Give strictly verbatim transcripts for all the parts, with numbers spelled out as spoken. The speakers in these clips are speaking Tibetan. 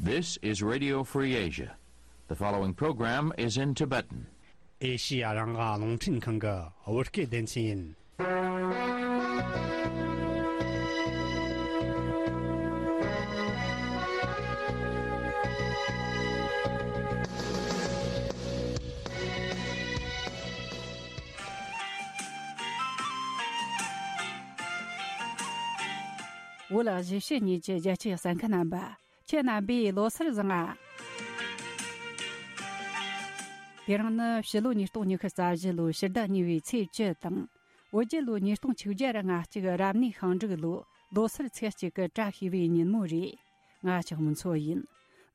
This is Radio Free Asia. The following program is in Tibetan. ཨེ་ཤི་ཡ་རང་དབང་རླུང་འཕྲིན་ཁང་གི་བོད་སྐད་སྡེ་ཚན་ཡིན། བོད་གཞིས་བྱེས་གཉིས་ཀྱི་རྒྱལ་གཅེས་གསན་མཁན་རྣམ་པ། ཁྱེད་རྣམ་པས་ལོ་གསར་བཟང་ང་། དེ་རིང་ནི་ཕྱི་ལོ་ཉིས་སྟོང་ཉི་ཤུ་རྩ་བཞི་ལོའི་ཕྱི་ཟླ་གཉིས་པའི་ཚེས་བཅུ་དང་། བོད་རྒྱལ་ལོ་ཉིས་སྟོང་ཆིག་བརྒྱ་ང་གཅིག་རབ་གནས་ཤིང་འབྲུག་ལོ་ལོ་སར་ཚེས་གཅིག་གི་བཀྲ་ཤིས་པའི་ཉིན་མོ་རེད། ང་ཅག་མུན་མཚོ་ཡིན།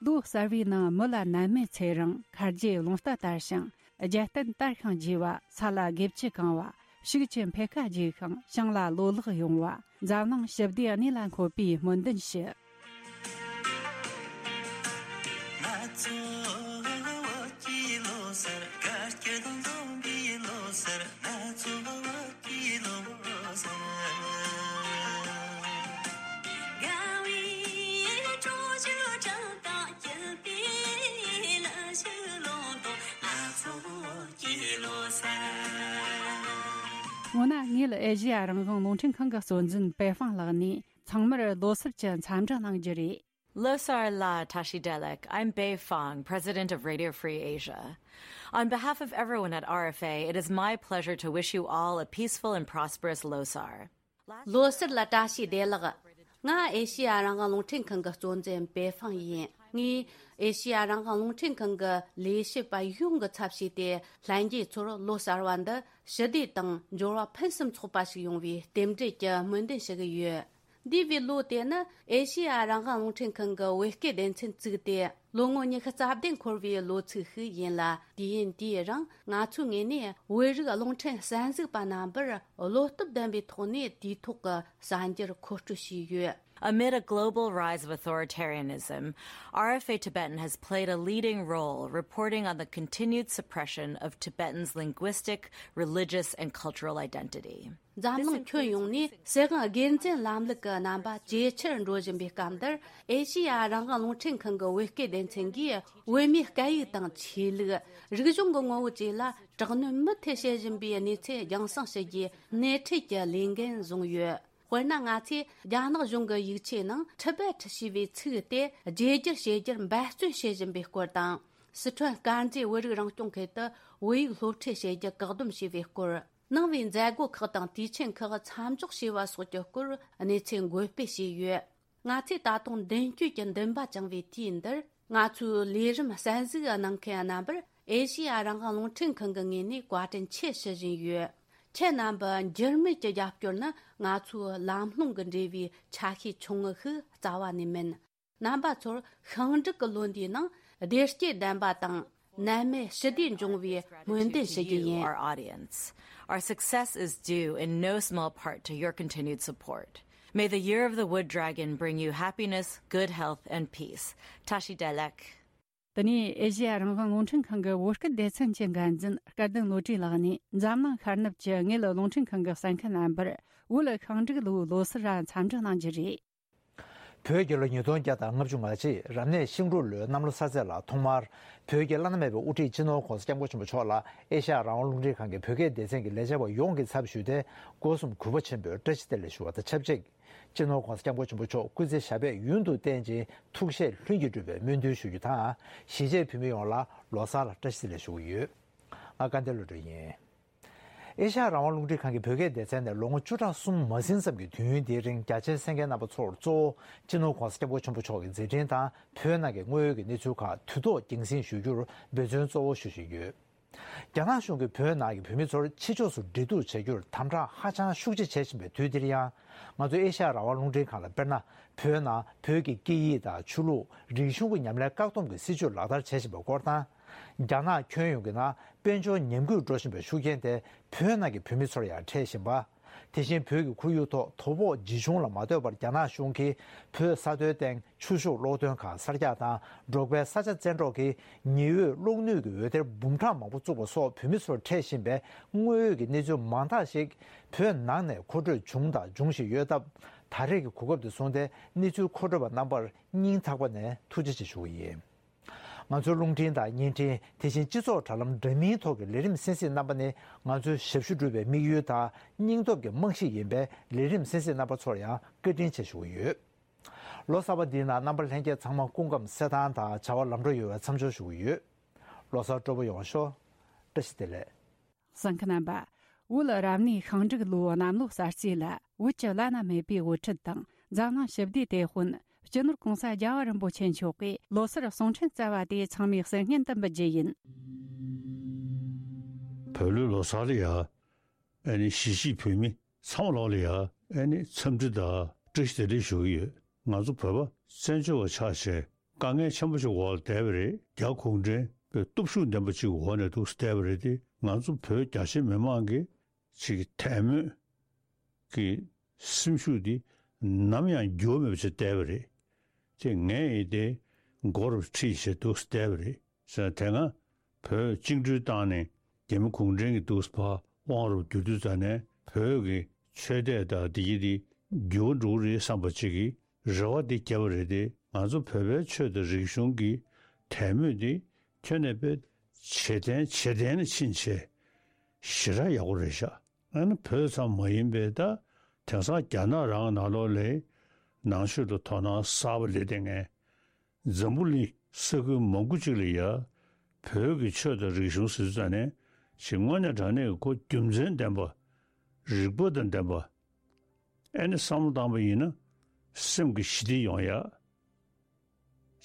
ལོ་གསར་བའི་ནང་མི་ལ་ནད་མེད་ཚེ་རིང་། ཁ་རྗེ་རླུང་རྟ་དར་ཞིང་རྒྱལ་བསྟན་དར་ཞིང་རྒྱས་པ། ས་ལ་དགེ་བཅུ་གང་བ། ཕྱུགས་ཀྱི་འཕེལ་ཁ་རྒྱས་ཤིང་ཞིང་ལ་ལོ་ལེགས་ཡོང་བ། འཛམ་གླིང་ཞི་བདེ་གནས་ལ་འཁོད་པའི་སྨོན་འདུན་ཞུ། སྔོན་ན་ངས་ཨེ་ཤེ་ཡ་རང་དབང་རླུང་འཕྲིན་ཁང་གི་གཙོ་འཛིན་པེ་ཧྥང་ལགས་ནས་ཚང་མར་ལོ་གསར་གྱི་འཚམས་འདྲི་གནང་རྒྱུ་རེད། Losar la Tashi Delek. I'm Bei Fang, president of Radio Free Asia. On behalf of everyone at R F A, it is my pleasure to wish you all a peaceful and prosperous Losar. ལོ་གསར་ལ་བཀྲ་ཤིས་བདེ་ལེགས། ང་ཨེ་ཤེ་ཡ་རང་དབང་རླུང་འཕྲིན་ཁང་གི་གཙོ་འཛིན་པེ་ཧྥང་ཡིན། ངས་ཨེ་ཤེ་ཡ་རང་དབང་རླུང་འཕྲིན་ཁང་གི་ལས་བྱེད་པ་ཡོངས་ཀྱི་ཚབ་བྱས་ཏེ། ལྷན་རྒྱས་ཚོར་ལོ་གསར་བ་འདི་ཞི་བདེ་དང་འབྱོར་བ་ཕུན་སུམ་ཚོགས་པ་ཞིག་ཡོང་བའི་རྟེན་འབྲེལ་གྱི་སྨོན་འདུན་ཞུ་གི་ཡོད། འདས་པའི་ལོ་དེ་ནི་ཨེ་ཤེ་ཡ་རང་དབང་རླུང་འཕྲིན་ཁང་གི་བོད་སྐད་སྡེ་ཚན་བཙུགས་ཏེ་ལོ་ངོ་ཉི་ཤུ་རྩ་བདུན་འཁོར་བའི་ལོ་ཚིགས་ཤིག་ཡིན་ལ། དུས་ཡུན་དེའི་རིང་ང་ཚོའི་ངོས་ནས་བོད་རིགས་རླུང་འཕྲིན་གསན་གཟིགས་པ་རྣམ་པར་བློ་སྟོབས་ལྡན་པའི་ཐོག་ནས་དུས་ཐོག་གི་གསར་འགྱུར་མཁོ་སྤྲོད་བྱས་ཡོད། Amid a global rise of authoritarianism, R F A Tibetan has played a leading role reporting on the continued suppression of Tibetans' linguistic, religious, and cultural identity. འཛམ་གླིང་ཁྱོན་ཡོངས་ནས་སྲིད་དབང་སྒེར་འཛིན་ལམ་ལུགས་ཀྱི་རྣམ་པ་ཇེ་ཆེར་འགྲོ་བཞིན་པའི་སྐབས་འདིར། ཨེ་ཤེ་ཡ་རང་དབང་རླུང་འཕྲིན་ཁང་གི་བོད་སྐད་སྡེ་ཚན་གྱིས་བོད་མིའི་སྐད་ཡིག་དང་ཆོས་ལུགས། རིག་གཞུང་གི་ངོ་བོ་བཅས་ལ་དྲག་གནོན་མུ་མཐུད་བྱེད་བཞིན་པའི་གནས་ཚུལ་རྒྱང་སྲིང་བྱེད་རྒྱུའི་སྣེ་ཁྲིད་ཀྱི་ལས་འགན་བཟུང་ཡོད། དཔེར་ན། ང་ཚོས་རྒྱ་ནག་གཞུང་གི་ཡིག་ཆའི་ནང་ཊི་བེ་ཊི་ཞེས་པའི་ཚིག་དེ་བརྗེ་བསྒྱུར་བྱེད་རྒྱུར་འབད་བརྩོན་བྱེད་བཞིན་པའི་སྐོར་དང་། སི་ཁྲོན་དཀར་མཛེས་བོད་རིགས་རང་སྐྱོང་ཁུལ་དུ་བོད་ཡིག་སློབ་ཁྲིད་བྱེད་རྒྱུ་བཀག་སྡོམ་བྱས་པའི་སྐོར། ནང་པའི་མཛད་སྒོ་ཁག་དང་དུས་ཆེན་ཁག་མཚམས་འཇོག་བྱས་པ་སོགས་ཀྱི་སྐོར་གནས་ཚུལ་འགོད་སྤེལ་བྱས་ཡོད། ང་ཚོས་ད་དུང་མདུན་སྐྱོད་ཀྱི་འདུན་པ་བཅངས་པའི་དུས་འདིར། ང་ཚོའི་ལས་རིམ་གསན་གཟིགས་གནང་མཁན་རྣམ་པར་ཨེ་ཤེ་ཡ་རང་དབང་རླུང་འཕྲིན་ཁང་གི་ངོས་ནས་བཀའ་དྲིན་ཆེ་ཞུ་བཞིན་ཡོད། ཁྱེད་རྣམ་པ་འགྱུར་མེད་ཀྱི་རྒྱབ་སྐྱོར་ནི་ང་ཚོའི་ལམ་ལྷོང་གི་འབྲས་བུའི་ཆ་ཤས་ཆུང་ངུ་ཞིག་རྩ་བ་ནས་མིན། རྣམ་པ་ཚོར་ཤིང་འབྲུག་གི་ལོ་འདིའི་ནང་བདེ་སྐྱིད་ལྡན་པ་དང་ནད་མེད་ཞི་བདེ་འབྱུང་བའི་སྨོན་འདུན་ཞུ་རྒྱུ་ཡིན། Our audience. Our success is due in no small part to your continued support. May the year of the wood dragon bring you happiness, good health, and peace. Tashi Delek. དེ་ནས་ཨེ་ཤེ་ཡ་རང་དབང་རླུང་འཕྲིན་ཁང་གི་བོད་སྐད་སྡེ་ཚན་གྱི་འགན་འཛིན་སྐལ་ལྡན་བློ་གྲོས་ལགས་ནས་འཛམ་གླིང་ཤར་ནུབ་ཀྱི་དངུལ་རླུང་འཕྲིན་ཁང་གི་གསན་མཁན་རྣམ་པར་བོད་ཤིང་འབྲུག་ལོའི་ལོ་གསར་འཚམས་འདྲི་གནང་རྒྱུ་རེད། བོད་རྒྱལ་ལོ་ཉིས་སྟོང་བརྒྱ་དང་ལྔ་བཅུ་ང་གཅིག་རབ་གནས་ཤིང་འབྲུག་ལོའི་གནམ་ལོ་གསར་ཚེས་ལ་ཐོག་མར་བོད་ཀྱི་བླ་ན་མེད་པའི་དབུ་ཁྲིད་སྤྱི་ནོར་༸གོང་ས་༸སྐྱབས་མགོན་ཆེན་པོ་མཆོག་ལ་ཨེ་ཤ་ཡ་རང་དབང་རླུང་འཕྲིན་ཁང་གི་བོད་སྐད་སྡེ་ཚན་གྱི་ལས་བྱེད་པ་ཡོངས་ཀྱི་ཚབ་ཞུས་ཏེ། སྒོ་གསུམ་གུས་པ་ཆེན་པོས་བཀྲ་ཤིས་བདེ་ལེགས་ཞུ་བ་དང་ཆབས་ཅིག་སྤྱི་ནོར་༸གོང་ས་༸སྐྱབས་མགོན་ཆེན་པོ་མཆོག་སྐུ་ཚེ་ཞབས་པད་ཡུན་དུ་བརྟན་ཅིང་ཐུགས་བཞེད་ལྷུན་གྱིས་འགྲུབ་པའི་སྨོན་འདུན་ཞུ་རྒྱུ་དང་། གཞིས་བྱེས་བོད་མི་ཡོངས་ལ་ལོ་གསར་ལ་བཀྲ་ཤིས་བདེ་ལེགས་ཞུ་གི་ཡོད། ང་སྐལ་ལྡན་བློ་གྲོས་ཡིན། ཨེ་ཤ་ཡ་རང་དབང་རླུང་འཕྲིན་ཁང་གི་བོད་སྐད་སྡེ་ཚན་ནས་ལོ་ངོ་བཅུ་ཕྲག་གསུམ་མ་ཟིན་ཙམ་གྱི་དུས་ཡུན་འདིའི་རིང་རྒྱ་ཆེའི་གསན་མཁན་རྣམ་པ་ཚོར་གཙོ་བོ་སྤྱི་ནོར་༸གོང་ས་༸སྐྱབས་མགོན་ཆེན་པོ་མཆོག་གི་མཛད་འཕྲིན་དང་བོད་ནང་གི་དངོས་ཡོད་ཀྱི་གནས་ཚུལ་ཁག་དུས་ཐོག་རྒྱང་སྲིང་ཞུ་རྒྱུར་འབད་བརྩོན་གཙོ་བོ་ཞུ་བཞིན་ཡོད། རྒྱ་ནག་གཞུང་གིས་བོད་ནང་གི་བོད་མི་ཚོར་ཕྱི་ཕྱོགས་སུ་འབྲེལ་གཏུག་བྱ་རྒྱུར་དམ་དྲག་ཧ་ཅང་ཤུགས་ཆེ་བྱེད་བཞིན་པའི་དུས་འདིར་ཡང་། ང་ཚོ་ཨེ་ཤ་ཡ་རང་དབང་རླུང་འཕྲིན་ཁང་ལ་དཔེར་ན། བོད་ནང་བོད་ཀྱི་སྐད་ཡིག་དང་ཆོས་ལུགས་རིག་གཞུང་གི་ཉམས་ལེན་བཀག་སྡོམ་གྱི་སྲིད་བྱུས་ལག་བསྟར་བྱེད་བཞིན་པའི་སྐོར་དང་། རྒྱ་ནག་ཁྱོན་ཡོངས་ཀྱི་ནང་དཔལ་འབྱོར་ཉམས་རྒུད་འགྲོ་བཞིན་པའི་ཤུགས་རྐྱེན་དེ་བོད་ནང་གི་བོད་མི་ཚོར་ཡང་འཕྲད་བཞིན་པ། དེ་བཞིན་བོད་ཀྱི་ཁོར་ཡུག་ཐོག་དོ་ཕོག་ཇི་བྱུང་ལ་མ་ལྟོས་པར། རྒྱ་ནག་གཞུང་གིས་བོད་ས་མཐོའི་སྟེང་ཆུ་ཤུགས་གློག་འདོན་ཁང་གསར་རྒྱག་དང་། འབྲོག་པའི་ས་ཆ་བཙན་འཕྲོག་གིས་ཉི་འོད་གློག་ནུས་ཀྱི་འོད་སྡེར་འབུམ་ཕྲག་མང་པོ་བཙུགས་པ་སོགས་བོད་མི་ཚོར་འཕྲད་བཞིན་པའི་དངོས་ཡོད་ཀྱི་གནས་ཚུལ་མང་དག་ཞིག་བོད་ནང་ནས་མཁོ་སྤྲོད་བྱུང་དང་འབྱུང་བཞིན་ཡོད་སྟབས། ད་རེས་ཀྱི་གོ་སྐབས་དེ་བཟུང་སྟེ་གནས་ཚུལ་མཁོ་སྤྲོད་པ་རྣམ་པར་སྙིང་ཐག་པ་ནས་ཐུགས་རྗེ་ཆེ་ཞུ་གི་ཡིན། ང་ཚོའི་རླུང་འཕྲིན་དང་བརྙན་འཕྲིན། དེ་བཞིན་སྤྱི་ཚོགས་དྲ་ལམ་འདྲ་མིན་ཐོག་གི་ལས་རིམ་གསན་གཟིགས་རྣམ་པ་ནི། ང་ཚོའི་ཞབས་ཞུ་སྒྲུབ་པའི་དམིགས་ཡུལ་དང་སྙིང་སྟོབས་ཀྱི་རྨང་གཞི་ཡིན་པས། ལས་རིམ་གསན་གཟིགས་རྣམ་པ་ཚོར་ཡང་བཀའ་དྲིན་ཆེ་ཞུ་གི་ཡོད། ལོ་གསར་པ་འདིའི་ནང་རྣམ་པ་ལྷན་རྒྱས་ཚང་མ་སྐུ་ཁམས་གསལ་ཐང་དང་བྱ་བ་ལམ་འགྲོ་ཡོང་བའི་འཚམས་འཇོག་ཞུ་གི་ཡོད། ལོ་གསར་སྤྲོ་པོ་ཡོང་ཤོག་བཀྲ་ཤིས་བདེ་ལེགས། གསན་མཁན་རྣམ་པ། བོད་རབ་གནས་ཤིང་འབྲུག་ལོའི་གནམ་ལོ་གསར་བརྗེ་ལ། བོད་ཀྱི་བླ་ན་མེད་པའི་དབུ་ཁྲིད་དང་། འཛམ་གླིང་ཞི་བདེའི་དེད་དཔོན། སྤྱི་ནོར་༸གོང་ས་༸རྒྱལ་བ་རིན་པོ་ཆེ་མཆོག་གིས་ལོ་གསར་གསུང་འཕྲིན་བསྩལ་བ་དེ་ཚང་མས་གསན་སྙན་དུ་འབུལ་རྒྱུ་ཡིན། བོད་ལོའི་ལོ་གསར་ལ་ཡ། ཨ་ནི་གཞིས་བྱེས་བོད་མི་ཚང་མ་ལོག་ལ་ཡ། ཨ་ནི་འཚམས་འདྲི་དང་བཀྲ་ཤིས་བདེ་ལེགས་ཞུ་གི་ཡོད། ང་ཚོ་བོད་པ་བཙན་བྱོལ་བ་ཆགས་བྱས་དཀའ་ངལ་ཆེན་པོ་ཞིག་འོག་ལ་བསྡད་པ་རེད། རྒྱ་གུང་ཁྲན་པའི་སྟོབས་ཤུགས་ལྡན་པ་ཅིག་འོག་ནས་འདུག་བསྡད་པ་རེད་དེ། ང་ཚོ་བོད་རྒྱ་ཆེ་མི་མང་གི་ཅིག་དད་མོས་ཀྱི་སེམས་ཤུགས་འདི་ནམ་ཡང་འགྱུར་བ་མེད་པ་ཅིག་བསྡད་པ་རེད། ཅེས་ངས་ཡིན་ཏེ་མགོ་རུ་ཁྲིད་བྱས་འདུག་བསྡད་པ་རེད་ཟེར། དེ་སྔ་བོད་བཅིངས་འགྲོལ་བཏང་ནས་རྒྱ་མི་གུང་ཁྲན་གྱི་འདུག་ཕར་དབང་རུ་བསྒྱུར་དུས་ཙ་ནས་བོད་ཀྱི་ཆོས་དད་དང་འདི་གྱི་འདི་འགྱུར་བ་འགྲོ་གི་རེད་བསམ་པ་ཅིག་གི་རེ་བ་འདི་བརྒྱབ་པ་རེད་དེ། ང་ཚོ་བོད་པའི་ཆོས་དང་རིག་གཞུང་གི་དད་མོས་འདི་ཁྱོན་ནས་དཔེ་ཇེ་བརྟན་ཇེ་བརྟན་ལ་ཕྱིན་བྱས་ཞེ་དྲག་ཡག་པོ་རེད་ཤག་ཨ་ནི་བོད་ཙམ་མ་ཡིན་པའི་ད་དེང་སང་རྒྱ་ནག་རང་ནང་ལོགས་ལ་ནང་ཆོས་ལ་དོ་སྣང་གསར་པ་སླེབས་བསྡད་མཁན། འཛམ་བུ་གླིང་ས་ཁུལ་མང་པོ་ཅིག་ལ་ཡ་བོད་ཀྱི་ཆོས་དང་རིག་གཞུང་ཟེར་ཙ་ནས་ཞིག་དངོས་གནས་དྲང་གནས་ཀྱི་ཁོ་རྒྱུ་མཚན་ལྡན་པ། རིག་པ་དང་ལྡན་པ། ཨ་ནི་བསམ་བློ་བཏང་པ་ཡིན་ན་སེམས་ཀྱི་ཞི་བདེ་ཡོང་ཡ།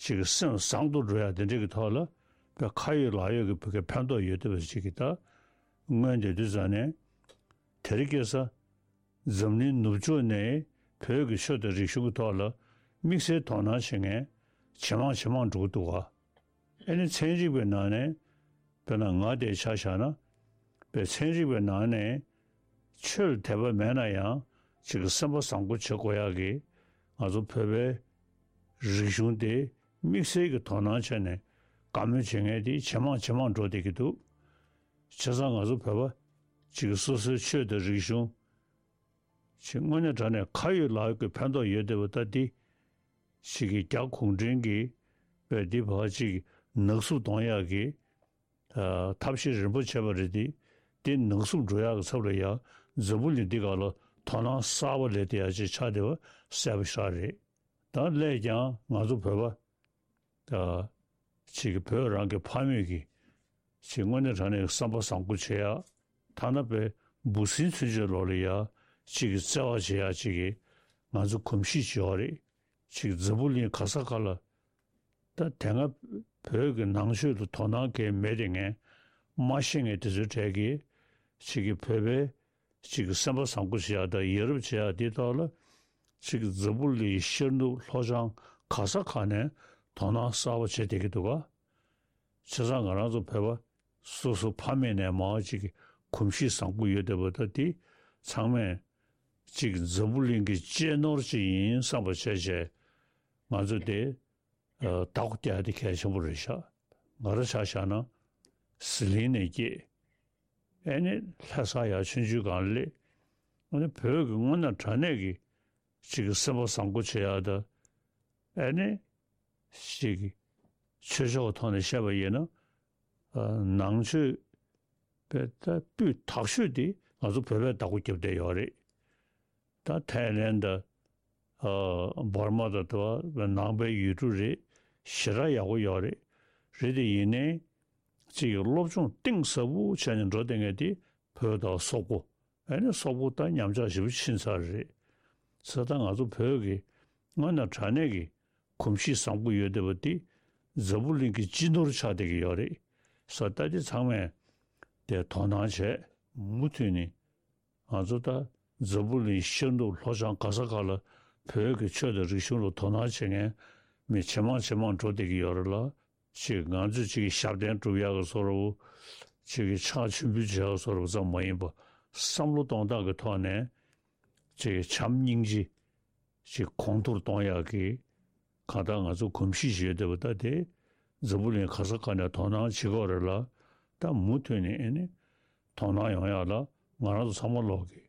ཅིག་གི་སེམས་བཟང་དུ་འགྲོ་ཡ་དེ་འདྲ་གི་ཐོག་ལ་བོད་ཁ་ཡོད་ལག་ཡོད་ཀྱི་བོད་ཀྱི་ཕན་ཐོགས་ཡོད་བསྡད་པ་ཅིག་གི་ད་མངོན་བསྡད་དུས་ཙ་ནས་དེ་རིང་ཁ་སང་འཛམ་གླིང་ནུབ་ཕྱོགས་ནས་བོད་ཀྱི་ཆོས་དང་རིག་གཞུང་གི་ཐོག་ལ་དམིགས་བསལ་དོ་སྣང་བྱེད་མཁན་ཇེ་མང་ཇེ་མང་འགྲོ་གི་འདུག་ག་ཨ་ནི་ཚན་རིག་པའི་ནང་ནས་དཔེར་ན་ང་དེ་ཆ་བཞག་ན་དཔེ་ཚན་རིག་པའི་ནང་ནས་ཆོས་ལ་དད་པ་མེད་ན་ཡང་ཅིག་གི་སེམས་པ་བཟང་པོ་བྱེད་དགོས་ཡག་གི་ང་ཚོ་བོད་པའི་རིག་གཞུང་དེ་དམིགས་བསལ་གྱི་དོ་སྣང་བྱས་ནས་དགའ་མོས་བྱེད་མཁན་དེ་ཇེ་མང་ཇེ་མང་འགྲོ་བསྡད་ཀྱི་འདུག་བྱས་ཙང་ང་ཚོ་བོད་པ་ཅིག་གི་སོ་སོའི་ཆོས་དང་རིག་གཞུང་ཅིག་དངོས་གནས་དྲང་གནས་ཁ་ཡོད་ལག་ཡོད་ཀྱི་ཕན་ཐོགས་ཡོད་བསྡད་པ་ད་འདི་ཅིག་གི་རྒྱ་གུང་ཁྲན་གྱིས་བས་འདི་བར་ཅིག་ནག་བསུབ་གཏོང་ཡག་གི་ཨ་ཐབས་ཤེས་རིམ་པ་བྱས་པ་རེད་དེ། དེ་ནག་བསུབ་འགྲོ་ཡག་གི་ཚབ་ལ་ཡང་འཛམ་བུ་གླིང་འདི་ག་ལ་དོ་སྣང་གསར་པ་ལས་དེ་ཡག་ཅིག་ཆགས་བསྡད་པ་གསལ་པོ་ཤར་རེད། ད་སླད་ཀྱང་ང་ཚོ་བོད་པ་ད་ཅིག་གི་བོད་རང་གི་ཕ་མེས་ཀྱི་ཅིག་དངོས་གནས་དྲང་གནས་བསམ་པ་བཟང་པོ་བྱེད་ཡག་ཐ་ན་པའི་འབུ་སྲིན་ཚུན་ཆད་ལོག་ལ་ཡག་ཅིག་གི་བརྩེ་བ་བྱེད་ཡག་ཅིག་གི་ང་ཚོ་གོམས་གཤིས་ཅིག་ཡོད་རེད། ཅིག་འཛམ་བུ་གླིང་ག་ས་ག་ལ་ད་དེ་སྔ་བོད་ཀྱི་ནང་ཆོས་ལ་དོ་སྣང་གང་མེད་དེ་ངས་མ་ཤེས་མཁན་དེ་ཚོའི་གྲས་ཀྱིས་ཅིག་གི་བོད་པའི་ཅིག་གི་སེམས་པ་བཟང་པོ་བྱེད་ཡག་དང་ཡ་རབས་བྱེད་ཡག་དེའི་ཐོག་ལ་ཅིག་གི་འཛམ་བུ་གླིང་ཤར་ནུབ་ལྷོ་བྱང་ག་ས་ག་ནས་དོ་སྣང་གསར་པ་བྱེད་བསྡད་ཀྱི་འདུག་ག་བྱས་ཙང་ང་རང་ཚོ་བོད་པ་སོ་སོ་ཕ་མེས་ནས་མར་ཅིག་གི་གོམས་གཤིས་བཟང་པོ་ཡོད་བསྡད་པ་ད་དེ་ཚང་མས་ཅིག་འཛམ་བུ་གླིང་གི་གཅེས་ནོར་ཅིག་ཡིན་བསམ་པ་བྱས་བྱས་ང་ཚོ་དེ་ཨ་བདག་པོ་རྒྱག་ཡ་དེ་གལ་ཆེན་པོ་རེད་ཤག་ང་རང་ཆ་བཞག་ན་ཟི་ལིང་ནས་སྐྱེས། ཨེ་ནི་ལྷ་ས་ཡར་ཆུང་ཆུང་སྒང་སླེབས། ཨ་ནི་བོད་ཀྱི་དངོས་གནས་དྲང་གནས་ཀྱི་ཅིག་གི་སེམས་པ་བཟང་པོ་བྱེད་ཡག་དང་། ཨེ་ནི་ཅིག་གི་ཆོས་ཕྱོགས་ཐོག་ནས་བཤད་པ་ཡིན་ན། ཨ་ནང་ཆོས་པའི་ད་སྤུས་དག་ཤོས་དེ་ང་ཚོ་བོད་པས་བདག་པོ་རྒྱབ་བསྡད་ཡོད་རེད། ད་ཐའི་ལེན་དང་། ཨ་འབར་མ་དང་དེ་བ་ནང་པའི་ཡུལ་གྲུ་རེད། ཞེ་དྲག་ཡག་པོ་ཡོད་རེད། རེད་དེ་ཡིན་ནའི་ཅིག་གི་སློབ་སྦྱོང་གཏིང་ཟབ་པོ་བྱས་ནས་འགྲོ་བསྡད་མཁན་དེ་བོད་དང་སོག་པོ། ཨ་ནི་སོག་པོ་ད་ཉམས་ཆག་ཞེ་པོ་ཕྱིན་ཚར་རེད། ས་ད་ང་ཚོ་བོད་ཀྱི་དངོས་གནས་དྲང་གནས་ཀྱི་གོམས་གཤིས་བཟང་པོ་ཡོད་བསྡད་པ་དེ་འཛམ་བུ་གླིང་གི་སྤྱི་ནོར་ཆགས་བསྡད་ཀྱི་ཡོད་རེད། ས་ད་དེ་ཚང་མས་དེ་དོ་སྣང་བྱས་མུ་མཐུད་ནས། ང་ཚོ་ད་འཛམ་བུ་གླིང་ཤར་ནུབ་ལྷོ་བྱང་ག་ས་ག་ལ་བོད་ཀྱི་ཆོས་དང་རིག་གཞུང་ལ་དོ་སྣང་བྱེད་མཁན་མི་ཇེ་མང་ཇེ་མང་འགྲོ་བསྡད་ཀྱི་ཡོད་རེད་ལ། ཅིག་ང་ཚོས་ཅིག་གི་ཞབས་བརྟན་སྒྲུབ་ཡག་གི་བཟོ་འདྲ་བོ། ཅིག་གི་ཕྱག་མཆོད་འབུལ་བྱེད་ཡག་བཟོ་འདྲ་བོ་ཙམ་མ་ཡིན་པ། བསམ་བློ་གཏོང་སྟངས་ཀྱི་ཐོག་ནས་ ཅིག་བྱམས་སྙིང་རྗེ་ཅིག་གོང་མཐོར་གཏོང་ཡག་གི་གང་ལྟར་ང་ཚོ་གོམས་གཤིས་ཤིག་ཡོད་བསྡད་པ་ད་དེ་འཛམ་བུ་གླིང་ག་ས་ག་ནས་དོ་སྣང་བྱེད་ཀྱི་ཡོད་རེད་ལ། ད་མུ་མཐུད་ནས་ཨེ་ནི་དོ་སྣང་ཡོང་ཡག་ལ་ང་རང་ཚོ་ཚང་མ་ལོག་གི་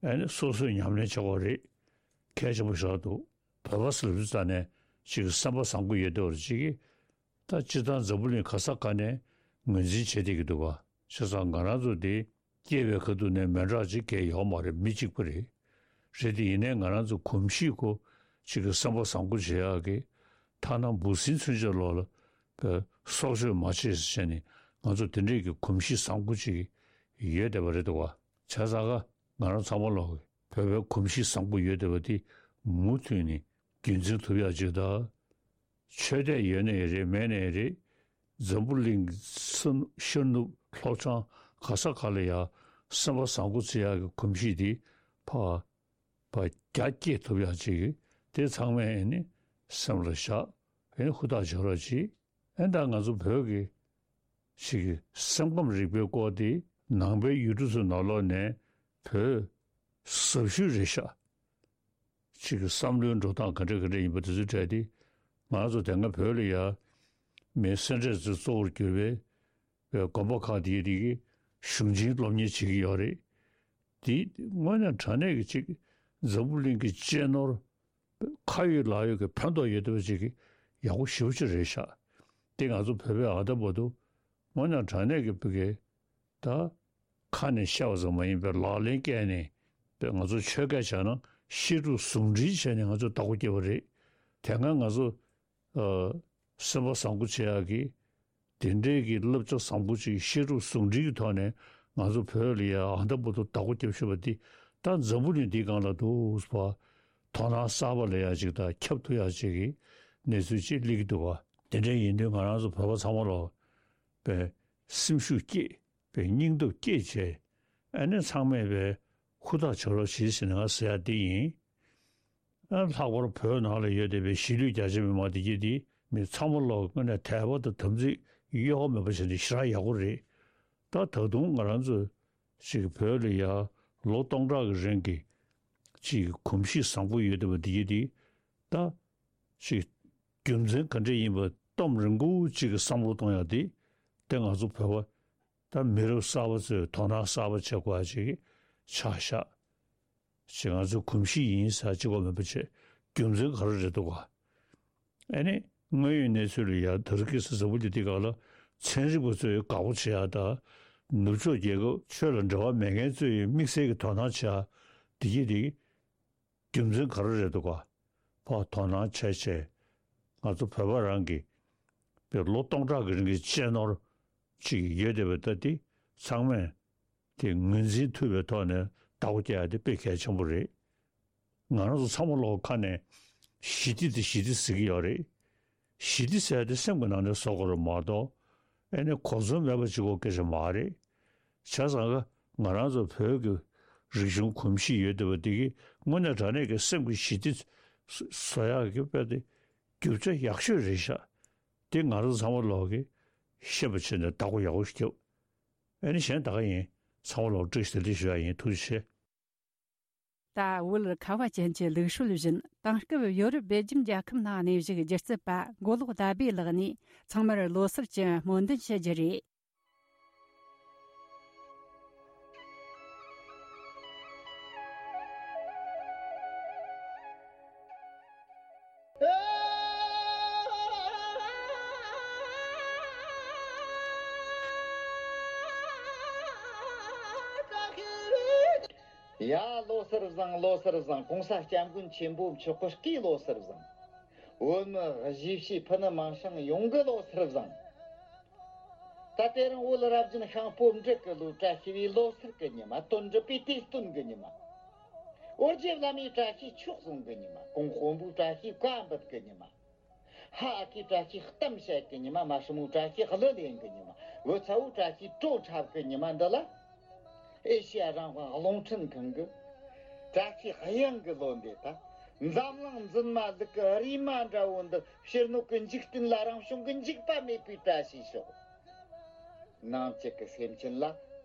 ཨེ་ནི་སོ་སོས་ཉམས་ལེན་བྱེད་དགོས་རེད། གལ་ཆེན་པོ་ཞིག་འདུག་བོད་པ་ཟེར་ལབ་དུས་ཙ་ནས་ཅིག་སེམས་པ་བཟང་པོ་ཡོད་བསྡད་པ་ཅིག་གིས། ད་སྤྱིར་བཏང་འཛམ་བུ་གླིང་ག་ས་ག་ནས་ངོས་འཛིན་བྱེད་བསྡད་ཀྱི་འདུག་ག་བྱས་ཙང་ང་རང་ཚོ་འདི་སྐྱེས་པའི་ཁ་ཐུག་ནས་མི་འདྲ་ཅིག་གས་ཡོད་མ་རེད། མི་གཅིག་པ་རེད། རེད་དེ་ཡིན་ནའི་ང་རང་ཚོ་གོམས་གཤིས་ཁོ་ཅིག་གི་སེམས་པ་བཟང་པོ་བྱེད་ཡག་གི་ཐ་ན་འབུ་སྲིན་ཚུན་ཆད་ལོག་ལ་པའི་སྲོག་གཅོད་མ་བྱེད་ཟེར་བྱས་ནས་ང་ཚོ་དེ་འདྲས་ཀྱི་གོམས་གཤིས་བཟང་པོ་ཅིག་ཡོད་བསྡད་པ་རེད་འདུག་ག་བྱས་ཙང་ག་ང་རང་ཚང་མ་ལོག་གི་བོད་པའི་གོམས་གཤིས་བཟང་པོ་ཡོད་བསྡད་པ་དེ་མུ་མཐུད་ནས་རྒྱུན་འཛིན་ཐུབ་ཡག་ཅིག་དང་། ཆོས་དད་ཡོད་ནའི་རེད་མེད་ནའི་རེད། འཛམ་བུ་གླིང་ས་ཤར་ནུབ་ལྷོ་བྱང་ག་ས་ག་ལ་ཡ་སེམས་པ་བཟང་པོ་བྱེད་ཡག་གི་གོམས་གཤིས་དེ་ཕར་ཕར་རྒྱ་སྐྱེད་ཐུབ་ཡག་ཅིག་གི་དེ་ཚང་མས་ཨེ་ནི་སེམས་ལ་བཞག་ཨེ་ནི་ཧུར་ཐག་བྱེད་རོགས་གྱིས། ཨེ་ད་ང་ཚོ་བོད་ཀྱི་ཅིག་གི་སེམས་ཁམས་རིག་པའི་སྐོར་དེ་ནང་པའི་ཡུལ་གྲུ་ཚོའི་ནང་ལོགས་ནས་བོད་ཟབ་ཤོས་རེད་ཤག་ཅིག་གི་བསམ་བློའི་འགྲོ་སྟངས་ག་འདྲ་ག་འདྲ་ཡིན་པ་དེ་ཚོའི་གྲས་དེ་ང་ཚོ་དེ་སྔ་བོད་ལ་ཡ་མི་སེ་འབྲས་ཚོས་གཙོ་བོར་གྱུར་པའི་པའི་དགོན་པ་ཁག་དེའི་རིགས་ཀྱི་གཞུང་ཆེན་སློབ་གཉེར་བྱེད་ཀྱི་ཡོད་རེད། དེ་དངོས་གནས་དྲང་གནས་ཀྱི་ཅིག་འཛམ་བུ་གླིང་གི་གཅེས་ནོར་ཁ་ཡོད་ལག་ཡོད་ཀྱི་ཕན་ཐོགས་ཡོད་བསྡད་པ་ཅིག་གི་ཡག་པོ་ཞེ་པོ་ཅིག་རེད་ཤག་དེ་ང་ཚོ་བོད་པའི་ཨ་ད་བར་དུ་དངོས་གནས་དྲང་གནས་ཀྱི་བོད་ཀྱི་ད་ཁ་ནས་བཤད་པ་ཙམ་མ་ཡིན་པའི་ལག་ལེན་བཀལ་ནས་པའི་ང་ཚོ་ཆོས་སྐད་བྱས་ན་བཤད་སྒྲུབ་ཟུང་འབྲེལ་བྱས་ནས་ང་ཚོ་བདག་པོ་བསྐྱེད་པ་རེད། དེ་སྔ་ང་ཚོ་ཨ་སེམས་པ་བཟང་པོ་བྱེད་ཡག་གི་དེ་འདྲའི་གི་བསླབ་བྱ་བཟང་པོ་ཅིག་བཤད་སྒྲུབ་ཟུང་འབྲེལ་གྱི་ཐོག་ནས་ང་ཚོ་བོད་ལ་ཡ་ཨ་ད་བར་དུ་བདག་པོ་བསྐྱེད་ཤེས་པ་འདི་ད་འཛམ་བུ་གླིང་འདིའི་སྒང་ལ་འདུག་པ། དོ་སྣང་གསར་པ་ལ་ཡ་ཅིག་དང་ཁྱབ་ཐུབ་ཡག་ཅིག་གི་གནས་ཚུལ་ཅིག་སླེབས་ཀྱི་འདུག་པ། དེ་འདྲ་ཡིན་དུས་ང་རང་ཚོ་བོད་པ་ཚང་མ་ལོག་པའི་སེམས་ཤུགས་བསྐྱེད་པའི་སྙིང་སྟོབས་བསྐྱེད་བྱས་ཨ་ནི་ཚང་མས་པའི་ཧུར་ཐག་བྱེད་རོགས་བྱེད་ཟེར་ནས་ང་ཟེར་ཡག་འདི་ཡིན། ཨ་ལྷག་པར་བོད་ནང་ལ་ཡོད་བསྡད་པའི་གཞིས་ལུས་རྒྱ་ཆེ་མི་མང་དེ་གྱད་དེ་མི་ཚང་མ་ལོག་དངོས་གནས་དད་པ་དང་དམ་ཚིག་གཡོ་བ་མེད་པ་བྱས་ནས་ཞེ་དྲག་ཡག་པོ་རེད། ད་ད་དུང་ང་རང་ཚོ་ཅིག་བོད་ལ་ཡ་ལོ་སྟོང་ཕྲག་གི་རིང་གི་ཅིག་གོམས་གཤིས་བཟང་པོ་ཡོད་བསྡད་པ་དེ་གྱད་དེ་ད་ཅིག་རྒྱུ་མཚན་ག་འདྲ་ཡིན་པ་གཏམ་རིང་པོ་ཅིག་གི་བསམ་བློ་གཏོང་ཡག་དེ་དེ་ང་ཚོ་བོད་པ་ད་མི་རབས་གསར་པ་ཚོས་དོ་སྣང་གསར་པ་བྱེད་དགོས་ཡག་ཅིག་ཆགས་ཤག་ཅིག་ང་ཚོའི་གོམས་གཤིས་ཡིན་ཟེར་གཅིག་པོ་མིན་པ་བྱས་རྒྱུ་མཚན་ག་རེ་རེད་འདུག་ག་ཨ་ནི་དངོས་ཡོད་གནས་ཚུལ་ལ་ཡ་ད་རུ་ཁི་སི་ཟ་བུ་ལི་དེ་ག་ལ་ཚན་རིག་པ་ཚོས་དགའ་པོ་བྱེད་ཡག་དང་ནུབ་ཕྱོགས་རྒྱལ་ཁབ་ཆོས་ལ་འབྲེལ་བ་མེད་མཁན་ཚོས་དམིགས་བསལ་གྱི་དོ་སྣང་བྱེད་ཡག་དེ་གྱད་དེ་རྒྱུ་མཚན་ག་རེ་རེད་འདུག་ག་ཕར་དོ་སྣང་བྱས་བྱས་ང་ཚོ་བོད་པ་རང་གི་པའི་ལོ་སྟོང་ཕྲག་གི་རིང་གི་གཅེས་ནོར་ཅིག་ཡོད་བསྡད་པ་ད་དེ་ཚང་མས་དེ་ངོས་འཛིན་ཐུབ་པའི་ཐོག་ནས་བདག་པོ་རྒྱག་ཡག་དེ་དཔེ་གལ་ཆེན་པོ་རེད། ང་རང་ཚོ་ཚང་མ་ལོག་ཁ་ནས་ཞི་བདེ་དེ་ཞི་བདེ་ཟེར་གྱི་ཡོད་རེད། ཞི་བདེ་ཟེར་ཡག་དེ་སེམས་ཀྱི་ནང་ནས་བཟོ་དགོས་རེད་མ་གཏོགས་ཨེ་ནས་གོ་མཚོན་མེད་པ་ཅིག་གོ་སྐད་ཆ་མ་རེད། བྱས་ཙང་ང་རང་ཚོ་བོད་ཀྱི་རིག་གཞུང་གོམས་གཤིས་ཡོད་བསྡད་པ་འདི་གིས་དངོས་གནས་དྲང་གནས་ཀྱི་སེམས་ཀྱི་ཞི་བདེ་བཟོ་ཡག་གི་དཔེ་དེ་རྒྱུ་ཆ་ཡག་ཤོས་རེད་ཤག་དེ་ང་རང་ཚོ་ཚང་མ་ལོག་གིས་ཤེས་པ་བྱས་ནས་བདག་པོ་ཡག་པོ་ཞིག་རྒྱབ། ཨེ་ནི་གཞན་ད་ག་ཡིན། ཚང་མ་ལོག་བཀྲ་ཤིས་བདེ་ལེགས་ཞུ་ཡག་ཡིན། ཐུགས་རྗེ་ཆེ། ད་བོད་ཁ་བ་ཅན་གྱི་ལུགས་སྲོལ་བཞིན་དེང་སྐབས་ཡོ་རོབ་སྦེལ་ཇམ་རྒྱལ་ཁབ་ནང་གནས་བཞུགས་སྒྱུ་རྩལ་པ་མགོ་ལོག་ཟླ་བྷེ་ལགས་ནས་ཚང་མར་ལོ་གསར་གྱི་སྨོན་འདུན་ཞུ་རྒྱུ་རེད། ཡ་ལོ་གསར་བཟང་། ལོ་གསར་བཟང་། གོང་ས་སྐྱབས་མགོན་ཆེན་པོ་མཆོག་གི་བཀའི་ལོ་གསར་བཟང་། བོད་མི་གཞིས་བྱེས་ཕུ་ནུ་མིང་སྲིང་ཡོངས་ཀྱི་ལོ་གསར་བཟང་། ད་དེ་རིང་བོད་རབ་བརྒྱུད་ཤིང་ཕོ་བྲང་གི་ལོ། བཀྲ་ཤིས་པའི་ལོ་གསར་གྱི་ཉི་མ། དོན་འགྲུབ་པའི་དུས་སྟོན་གྱི་ཉི་མ། ཨོ་རྒྱན་བླ་མའི་བཀྲ་ཤིས་མཆོག་གསུང་གི་ཉི་མ། གོང་དཔོན་པོའི་བཀྲ་ཤིས་བཀའ་འབུལ་གྱི་ཉི་མ། ཕ་ཨ་ཁུའི་བཀྲ་ཤིས་གཏམ་བཤད་ཀྱི་ཉི་མ། མ་སྲུ་མོའི་བཀྲ་ཤིས་གླུ་ལེན་གྱི་ཉི་མ། བུ་ཚ་བོའི་བཀྲ་ཤིས་བྲོ་འཁྲབ་ཀྱི་ཉི་མ་འདི་ལ། ཨེ་ཤེ་ཡ་རང་དབང་རླུང་འཕྲིན་ཁང་གི་བཀྲ་ཤིས་གཡང་གི་ལོ་འདི་ད། འཛམ་གླིང་འཛིན་མ་ལུག་གི་རིས་མ་འདྲ་བོ་འདི་ཕྱི་སྣོད་ཀྱི་འཇིག་རྟེན་ལ་རང་བྱུང་གི་འཇིགས་པ་མེད་པའི་བཀྲ་ཤིས་ཤོག་ནང་བཅུད་ཀྱི་སེམས་ཅན་ལ་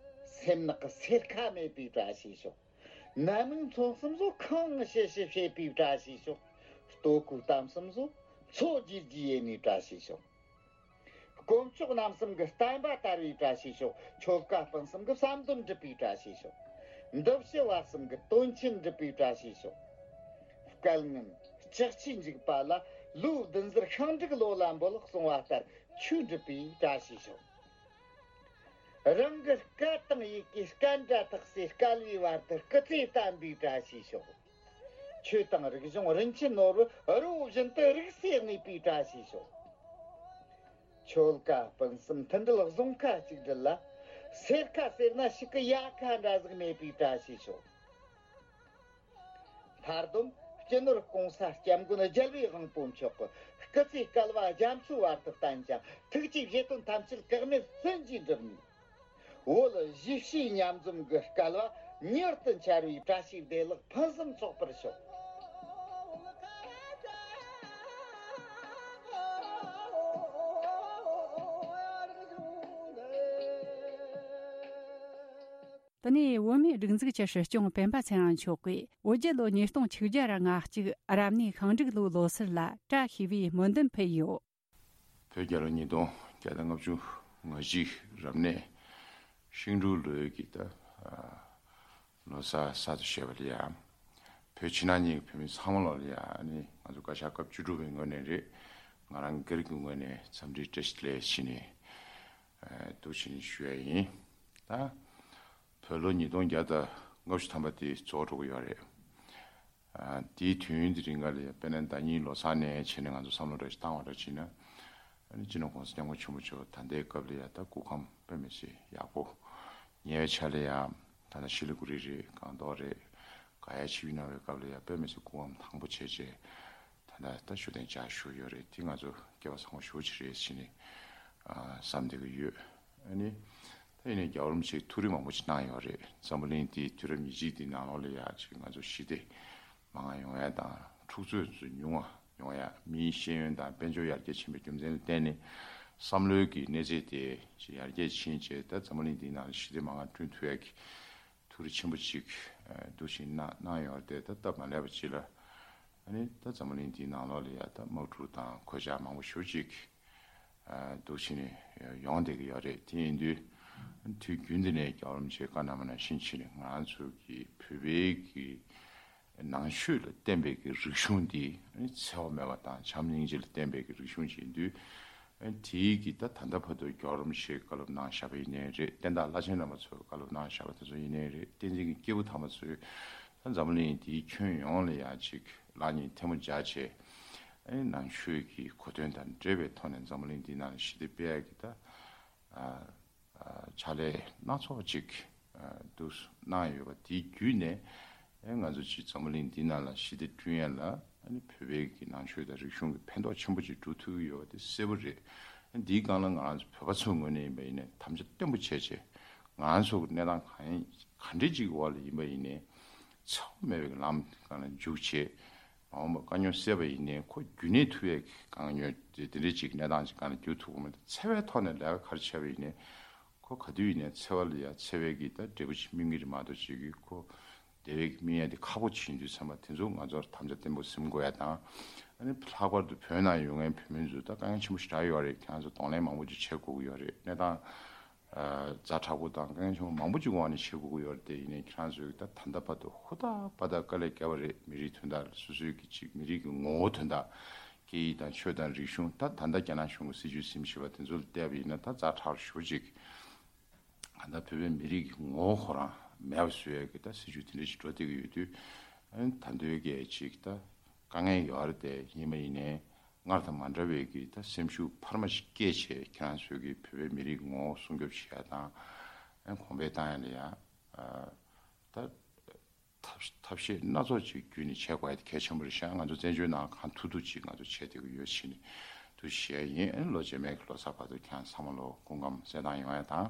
སེམས་ནག་གི་སེར་ཁ་མེད་པའི་བཀྲ་ཤིས་ཤོག་ནད་མིག་མཚོན་གསུམ་བཟོ་ཁང་ངི་ཤེ་ཤེ་བྱེད་པའི་བཀྲ་ཤིས་ཤོག། ལྟོ་གོས་གཏམ་གསུམ་བཟོ་མཚོ་རྒྱུད་ཀྱི་ཡེ་ནས་བཀྲ་ཤིས་ཤོག། དཀོན་མཆོག་རྣམ་གསུམ་གྱི་བསྟན་པ་དར་བའི་བཀྲ་ཤིས་ཤོག། ཆོལ་ཁ་སྤུན་གསུམ་གྱི་བསམ་དོན་འགྲུབ་པའི་བཀྲ་ཤིས་ཤོག། འདུ་བྱེད་བར་གསུམ་གྱི་དོན་ཆེན་འགྲུབ་པའི་བཀྲ་ཤིས་ཤོག། སྐལ་ངན་ལྕགས་ཀྱུས་འཇིགས་པ་ལ། ལོ་བདུན་ཟུར་ཤིང་འབྲུག་ལོ་ལ་འབོད། གསུང་བ་ལྟར་ཆོས་འགྲུབ་པའི་བཀྲ་ཤིས་ཤོག། རང་གི་སྐད་དང་ཡི་གེ་སྐད་འདྲ་ཐག་སེ། སྐལ་བའི་བར་དུ་སྐུ་ཚེ་བརྟན་པའི་བཀྲ་ཤིས་ཤོག། ཆོས་དང་རིག་གཞུང་རིན་ཆེན་ནོར་བུ་རི་བོ་བཞིན་དུ་རིག་སེ་གནས་པའི་བཀྲ་ཤིས་ཤོག། ཆོལ་ཁ་སྤུན་གསུམ་མཐུན་སྒྲིལ་བཟང་ཁ་གཅིག་སྒྲིལ་ལ། སེར་ཁ་སེར་ན་ཕྱུགས་ཀྱི་ཡལ་ག་འདྲ་ཟིག་མེད་པའི་བཀྲ་ཤིས་ཤོག། མཐར་སྡོམ་སྤྱི་ནོར་གོང་ས་སྐྱབས་མགོན་རྒྱལ་བའི་དབང་པོ་མཆོག་གི་སྐུ་ཚེ་བསྐལ་བ་རྒྱ་མཚོའི་བར་དུ་བརྟན་ཅིང་། ཐུགས་ཀྱི་བཞེད་དོན་ཐམས་ཅད་གེགས་མེད་བརྩོན་གྱིས་འགྲུབ་ནས། བོད་གཞིས་བྱེས་མཉམ་འཛོམས་ཀྱི་སྐལ་བ་མྱུར་དུ་འཆར་བའི་བཀྲ་ཤིས་བདེ་ལེགས་ཕུན་སུམ་ཚོགས་པར་ཤོག། དེ་ནས་བོད་མིའི་སྒྲིག་འཛུགས་ཀྱི་སྲིད་སྐྱོང་སྤེན་པ་ཚེ་རིང་མཆོག་གིས་བོད་རྒྱལ་ལོ་ཉིས་སྟོང་ཆིག་བརྒྱ་ར་ང་གཅིག་རབ་གནས་ཤིང་འབྲུག་ལོའི་ལོ་གསར་ལ་བཀྲ་ཤིས་པའི་སྨོན་འདུན་ཕུལ་ཡོད། བོད་རྒྱལ་ལོ་ཉིས་སྟོང་བརྒྱ་དང་ལྔ་བཅུ་ང་གཅིག་རབ་གནས་ཤིང་འབྲུག་ལོའི་གི་ད་ལོ་གསར་གསར་དུ་བཞད་པ་ལ་ཡ། བོད་ཕྱི་ནང་གཉིས་ཀྱི་བོད་མི་ཚང་མ་ལོ་ལ་ཡ་ནི་ང་ཚོ་བཀའ་ཤག་སྐབས་བཅུ་དྲུག་པའི་ངོས་ནས་རེད། ང་རང་སྒེར་གྱི་ངོས་ནས་འཚམས་འདྲི་བཀྲ་ཤིས་བདེ་ལེགས་ཞུས་ནས་འདུག་ཕྱི་ནས་ཞུ་ཡ་ཡིན། ད་བོད་ལོ་ཉིས་སྟོང་བརྒྱ་དང་ལྔ་བཅུ་ཐམ་པ་དེ་རྫོགས་འགྲོ་གི་ཡོད་རེད། དེའི་དུས་ཡུན་དེ་རིང་ག་ལ་ཡ་དཔེར་ན་ཟླ་ཉིན་ལོ་གསར་ནས་བྱས་ནས་ང་ཚོ་བསམ་བློ་འདྲ་ཞིག་བཏང་བ་འདྲ་བྱས་ན། ཨ་ནི་སྤྱི་ནོར་གོང་ས་སྐྱབས་མགོན་ཆེན་པོ་མཆོག་ད་ལྟའི་སྐབས་ལ་ཡ་ད་སྐུ་ཁམས་དཔེ་མི་སྲིད་ཡག་པོ། ཉེ་བའི་ཆར་ལ་ཡ་ད་ལྟ་ཤི་ལི་གུ་རི་རེད། སྒང་ཏོག་རེད། ག་ཡ་ཆིབས་གནང་བའི་སྐབས་ལ་ཡ་དཔེ་མི་སྲིད་སྐུ་ཁམས་ཐང་པོ་བྱས་བྱས། ད་ལྟ་ད་བཞུགས་གདན་འཇགས་བཞུགས་ཡོད་རེད། དེ་ང་ཚོ་སྐལ་བ་བཟང་པོ་ཞེ་པོ་ཅིག་རེད་ཟེར་ནས་བསམ་བསྡད་ཀྱི་ཡོད། ཨ་ནི། ད་ཡིན་ནའི་རྒྱལ་བ་རིན་པོ་ཆེས་ཐུགས་རེ་མང་པོ་ཅིག་གནང་ཡོད་རེད། འཛམ་བུ་གླིང་འདིའི་དུས་རབས་ཉེར་གཅིག་འདིའི་ནང་ལོགས་ལ་ཡ་ཅིག་ང་ཚོ་ཞི་བདེ་མ་འགག་ཡོང་ཡ་དང་། འཁྲུག་རྩོད་ཚོ་ཉུང་བ་ཡོང་ཡ། མིའི་ཤེས་ཡོན་དང་དཔལ་འབྱོར་ཡར་རྒྱས་ཕྱིན་པའི་རྒྱུ་མཚན་ལ་བརྟེན་ནས་བསམ་བློའི་གི་གནས་ཚད་དེ་ཅིག་ཡར་རྒྱས་ཕྱིན་བྱས། ད་འཛམ་བུ་གླིང་འདིའི་ནང་ལ་ཞི་བདེ་མ་འགག་བསྐྲུན་ཐུབ་ཡ་གི་ཐུགས་རེ་ཆེན་པོ་ཅིག་འདུག་བཞིན་གནང་གནང་ཡོད་རེད། ད་སྟབས་མ་ལེགས་པ་ཅིག་ལ། ཨ་ནི་ད་འཛམ་བུ་གླིང་འདིའི་ནང་ལོགས་ལ་ཡ་ད་དམག་འཁྲུག་དང་གོད་ཆག་མང་པོ་ཞེ་པོ་ཅིག་འདུག་བྱས་ནས་ཡོང་བསྡད་ཀྱི་ཡོད་རེད། དེ་ཡིན་དུས་དུས་རྒྱུན་དུ་ནས་རྒྱལ་བ་རིན་པོ་ཆེས་བཀའ་གནང་བ་ནང་བཞིན་བྱས་ནས་ང་རང་ཚོ་གི་བོད་པའི་གི་ནང་ཆོས་ལ་བརྟེན་པའི་གི་རིག་གཞུང་འདི་ཨ་ནི་འཚེ་བ་མེད་པ་དང་བྱམས་སྙིང་རྗེ་ལ་བརྟེན་པའི་གི་རིག་གཞུང་ཅིག་ཡིན་དུས། ཨ་ནི་དེའི་གི་ད་ད་ལྟ་བར་དུ་རྒྱལ་བ་རིན་པོ་ཆེས་བཀའ་སློབ་གནང་བཞག་པ་ཡིན་ནའི་རེད། བསྟན་བདག་བླ་ཆེན་རྣམ་པ་ཚོས་བཀའ་སློབ་གནང་བཞག་པ་དེ་ཚོ་ཡིན་ནའི་རེད། བསྟན་འཛིན་གྱི་སྐྱེས་བུ་དམ་པ་ཚོས་ད་འཛམ་བུ་གླིང་འདིའི་ཁྱོན་ཡོངས་ལ་ཡ་ཅིག་ལག་གཉིས་ཐལ་མོ་སྦྱར་བྱས། ཨ་ནི་ནང་ཆོས་ཀྱི་གོ་དོན་དང་འབྲེལ་བའི་ཐོག་ནས་འཛམ་བུ་གླིང་འདིའི་ནང་ལ་ཞི་བདེ་སྤེལ་ཡ་གི་ད་ཨ་ཨ་ཕྱག་ལས་སྣ་ཚོགས་ཅིག་ཨ་འདུག་གནང་ཡོད་པ་དེའི་བརྒྱུད་ནས། ཨེ་ང་ཚོ་ཅིག་འཛམ་བུ་གླིང་འདི་ནང་ལ་ཞི་བདེ་བསྐྲུན་ཡ་ལ་ཨ་ནི་བོད་པའི་གི་ནང་ཆོས་དང་རིག་གཞུང་གི་ཕན་ཐོགས་ཆེན་པོ་ཅིག་འགྲོ་ཐུབ་ཀྱི་ཡོད་པ་དེ་གསལ་པོ་རེད། ཨ་འདིའི་སྒང་ལ་ང་རང་ཚོ་བོད་པ་ཚོའི་ངོས་ནས་ཡིན་པ་ཡིན་ནའི་དམ་བཅའ་བརྟན་པོ་བྱས་བྱས། ང་རང་ཚོ་གི་གནས་སྟངས་གང་ཡིན་ག་འདྲ་ཅིག་གི་འོག་ལ་ཡིན་པ་ཡིན་ནའི་འཚེ་བ་མེད་པའི་ལམ་སྒང་ལ་འཇུག་བྱས། མ་འོངས་པ་དཀའ་རྙོག་སེལ་བ་ཡིན་ནའི་ཁོ་རྒྱུན་གནས་ཐུབ་ཡས་ཀྱི་དཀའ་རྙོག་དེ་དེ་འདྲའི་ཅིག་གནས་སྟངས་ཅིག་སྒང་ལ་འགྱུར་ཐུབ་ཀྱི་མེད། འཚེ་བའི་ཐོག་ནས་ལས་ཀ་ག་རེ་བྱས་པ་ཡིན་ནའི་ཁོ་ག་དུས་ཡིན་ནའི་འཚེ་བ་ལ་ཡ་འཚེ་བའི་གི་ད་འབྲས་བུ་ཅིག་སྨིན་གྱི་རེད་མ་གཏོགས་ཅིག་གི་ཁོ་བདེ་བའི་གི་སྨིན་ཡ་དེ་ཁག་པོ་ཅིག་ཡིན་དུས་ཙམ་པ་དེ་ཚོ་ང་ཚོར་དམ་བཅའ་བརྟན་པོ་ཟིན་དགོས་ཡ་དང་། ཨ་ནི་ལྷག་པར་དུ་བོད་ནང་ཡོད་མཁན་བོད་མི་ཚོ་ད་དཀའ་ངལ་ཆེན་པོ་ཞེ་དྲག་ཡོད་རེད། ཁྱེད་རང་ཚོ་གདོང་ལེན་མང་པོ་ཅིག་བྱེད་དགོས་ཀྱི་ཡོད་རེད། གནས་སྟངས་ཛ་དྲག་པོ་དང་དཀའ་ངལ་ཆེན་པོ་མང་པོ་ཅིག་འོག་ནས་བྱེད་དགོས་ཀྱི་ཡོད་རེད། དེ་ཡིན་ནའི་ཁྱེད་རང་ཚོས་ད་ད་ལྟ་བར་དུ་ཧུར་ཐག་པ་ད་དཀའ་ལས་བརྒྱབ་པ་རེད། མི་རིགས་དོན་དག་ལ་སོ་སོའི་གི་ཅིག་མི་རིགས་ཀྱི་ངོ་བོ་དོན་དག་སྐད་ཡིག་དང་ཆོས་དང་རིག་གཞུང་། ད་ད་ལྟ་རྒྱ་ནག་གཞུང་གི་སྲིད་བྱུས་ཟིན་བཞིན་པ་དེ་ཚོ་ལ་བལྟས་པ་ཡིན་ན་ད་ཛ་དྲག་ཞེ་པོ་ཅིག་གང་ལྟར་བོད་པའི་མི་རིགས་ཀྱི་ངོ་བོ་ཁོ་རང་མེད་པ་བཟོ་ཡས་ཀྱི་ད་སྲིད་བྱུས་དེ་འདྲ་ཞིག་འགྲོ་བསྡད་ཀྱི་ཡོད་དུས། ཨ་ནི་ད་ལྟའི་གི་ཅིག་ད་དཀའ་ངལ་ཡོད་རེད། དེ་ཡིན་པ་ཡིན་ནའི་སྔར་དང་མ་འདྲ་བའི་གི་ད་སེམས་ཤུགས་འཕར་མ་ཞིག་སྐྱེད་བྱས། ཁྱེད་རང་ཚོའི་གི་བོད་པའི་མི་རིགས་ངོ་བོ་སྲུང་སྐྱོབ་བྱེད་ཡ་དང་། ཨ་ནི་གོང་འཕེལ་བཏང་ཡ་ལ་ཡ་ཨ་ད་ཐབས་ཐབས་ཤེས་སྣ་ཚོགས་ཅིག་བརྒྱུད་ནས་བྱེད་དགོས་ཡ་དེ་གལ་ཆེན་པོ་རེད་ཤག་ང་ཚོ་བཙན་བྱོལ་ནང་གང་ཐུབ་ཐུབ་ཅིག་ང་ཚོ་བྱེད་བསྡད་ཀྱི་ཡོད་ཕྱིན་དུ་ཞུ་ཡ་ཡིན། ཨ་ནི་ལོ་རྗེས་མའི་གི་ལོ་གསར་བར་དུ་ཁྱེད་རང་ཚང་མ་ལོ་སྐུ་ཁམས་གསལ་ཐང་ཡོང་ཡ་དང་།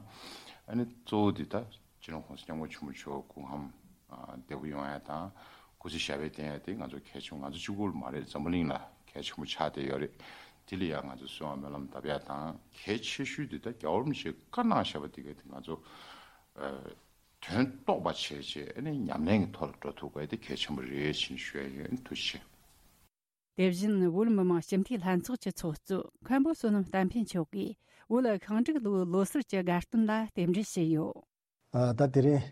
ཨ་ནི་གཙོ་བོ་འདི་ད་སྤྱི་ནོར་གོང་ས་སྐྱབས་མགོན་ཆེན་པོ་མཆོག་སྐུ་ཁམས་ཨ་བདེ་པོ་ཡོང་ཡ་དང་། སྐུ་ཚེ་ཞབས་པད་བརྟན་ཡ་དེ་ང་ཚོ་གལ་ཆེན་པོ། ང་ཚོ་གཅིག་པུ་ལ་མ་རེད། འཛམ་བུ་གླིང་ལ་གལ་ཆེན་པོ་ཆགས་བསྡད་ཡོད་རེད། དེ་ལ་ཡང་ང་ཚོ་གསོལ་བ་སྨོན་ལམ་བཏབ་ཡ་དང་། གལ་ཆེ་ཤོས་དེ་ད་རྒྱལ་བ་རིན་པོ་ཆེས་བཀའ་གནང་བཞག་པ་དེ་ག་དེ་ང་ཚོ་ཨ་ དོན་རྟོགས་པ་བྱས་རྗེས་ཨ་ནི་ཉམས་ལེན་གྱི་ཐོག་ལ་འགྲོ་ཐུབ་དགོས་དེ་གལ་ཆེན་པོ་རེད་ཅེས་ཞུ་ཡ་ཡིན། ཐུགས་རྗེ་ཆེ། དེ་བཞིན་བོད་མི་མང་སྤྱི་འཐུས་ལྷན་ཚོགས་ཀྱི་ཚོགས་གཙོ་མཁན་པོ་བསོད་ནམས་བསྟན་འཕེལ་མཆོག་གིས་བོད་ཤིང་འབྲུག་ལོའི་ལོ་གསར་གྱི་དགའ་སྟོན་ལ་རྟེན་འབྲེལ་ཞུས་ཡོད། ཨ། ད་དེ་རིང་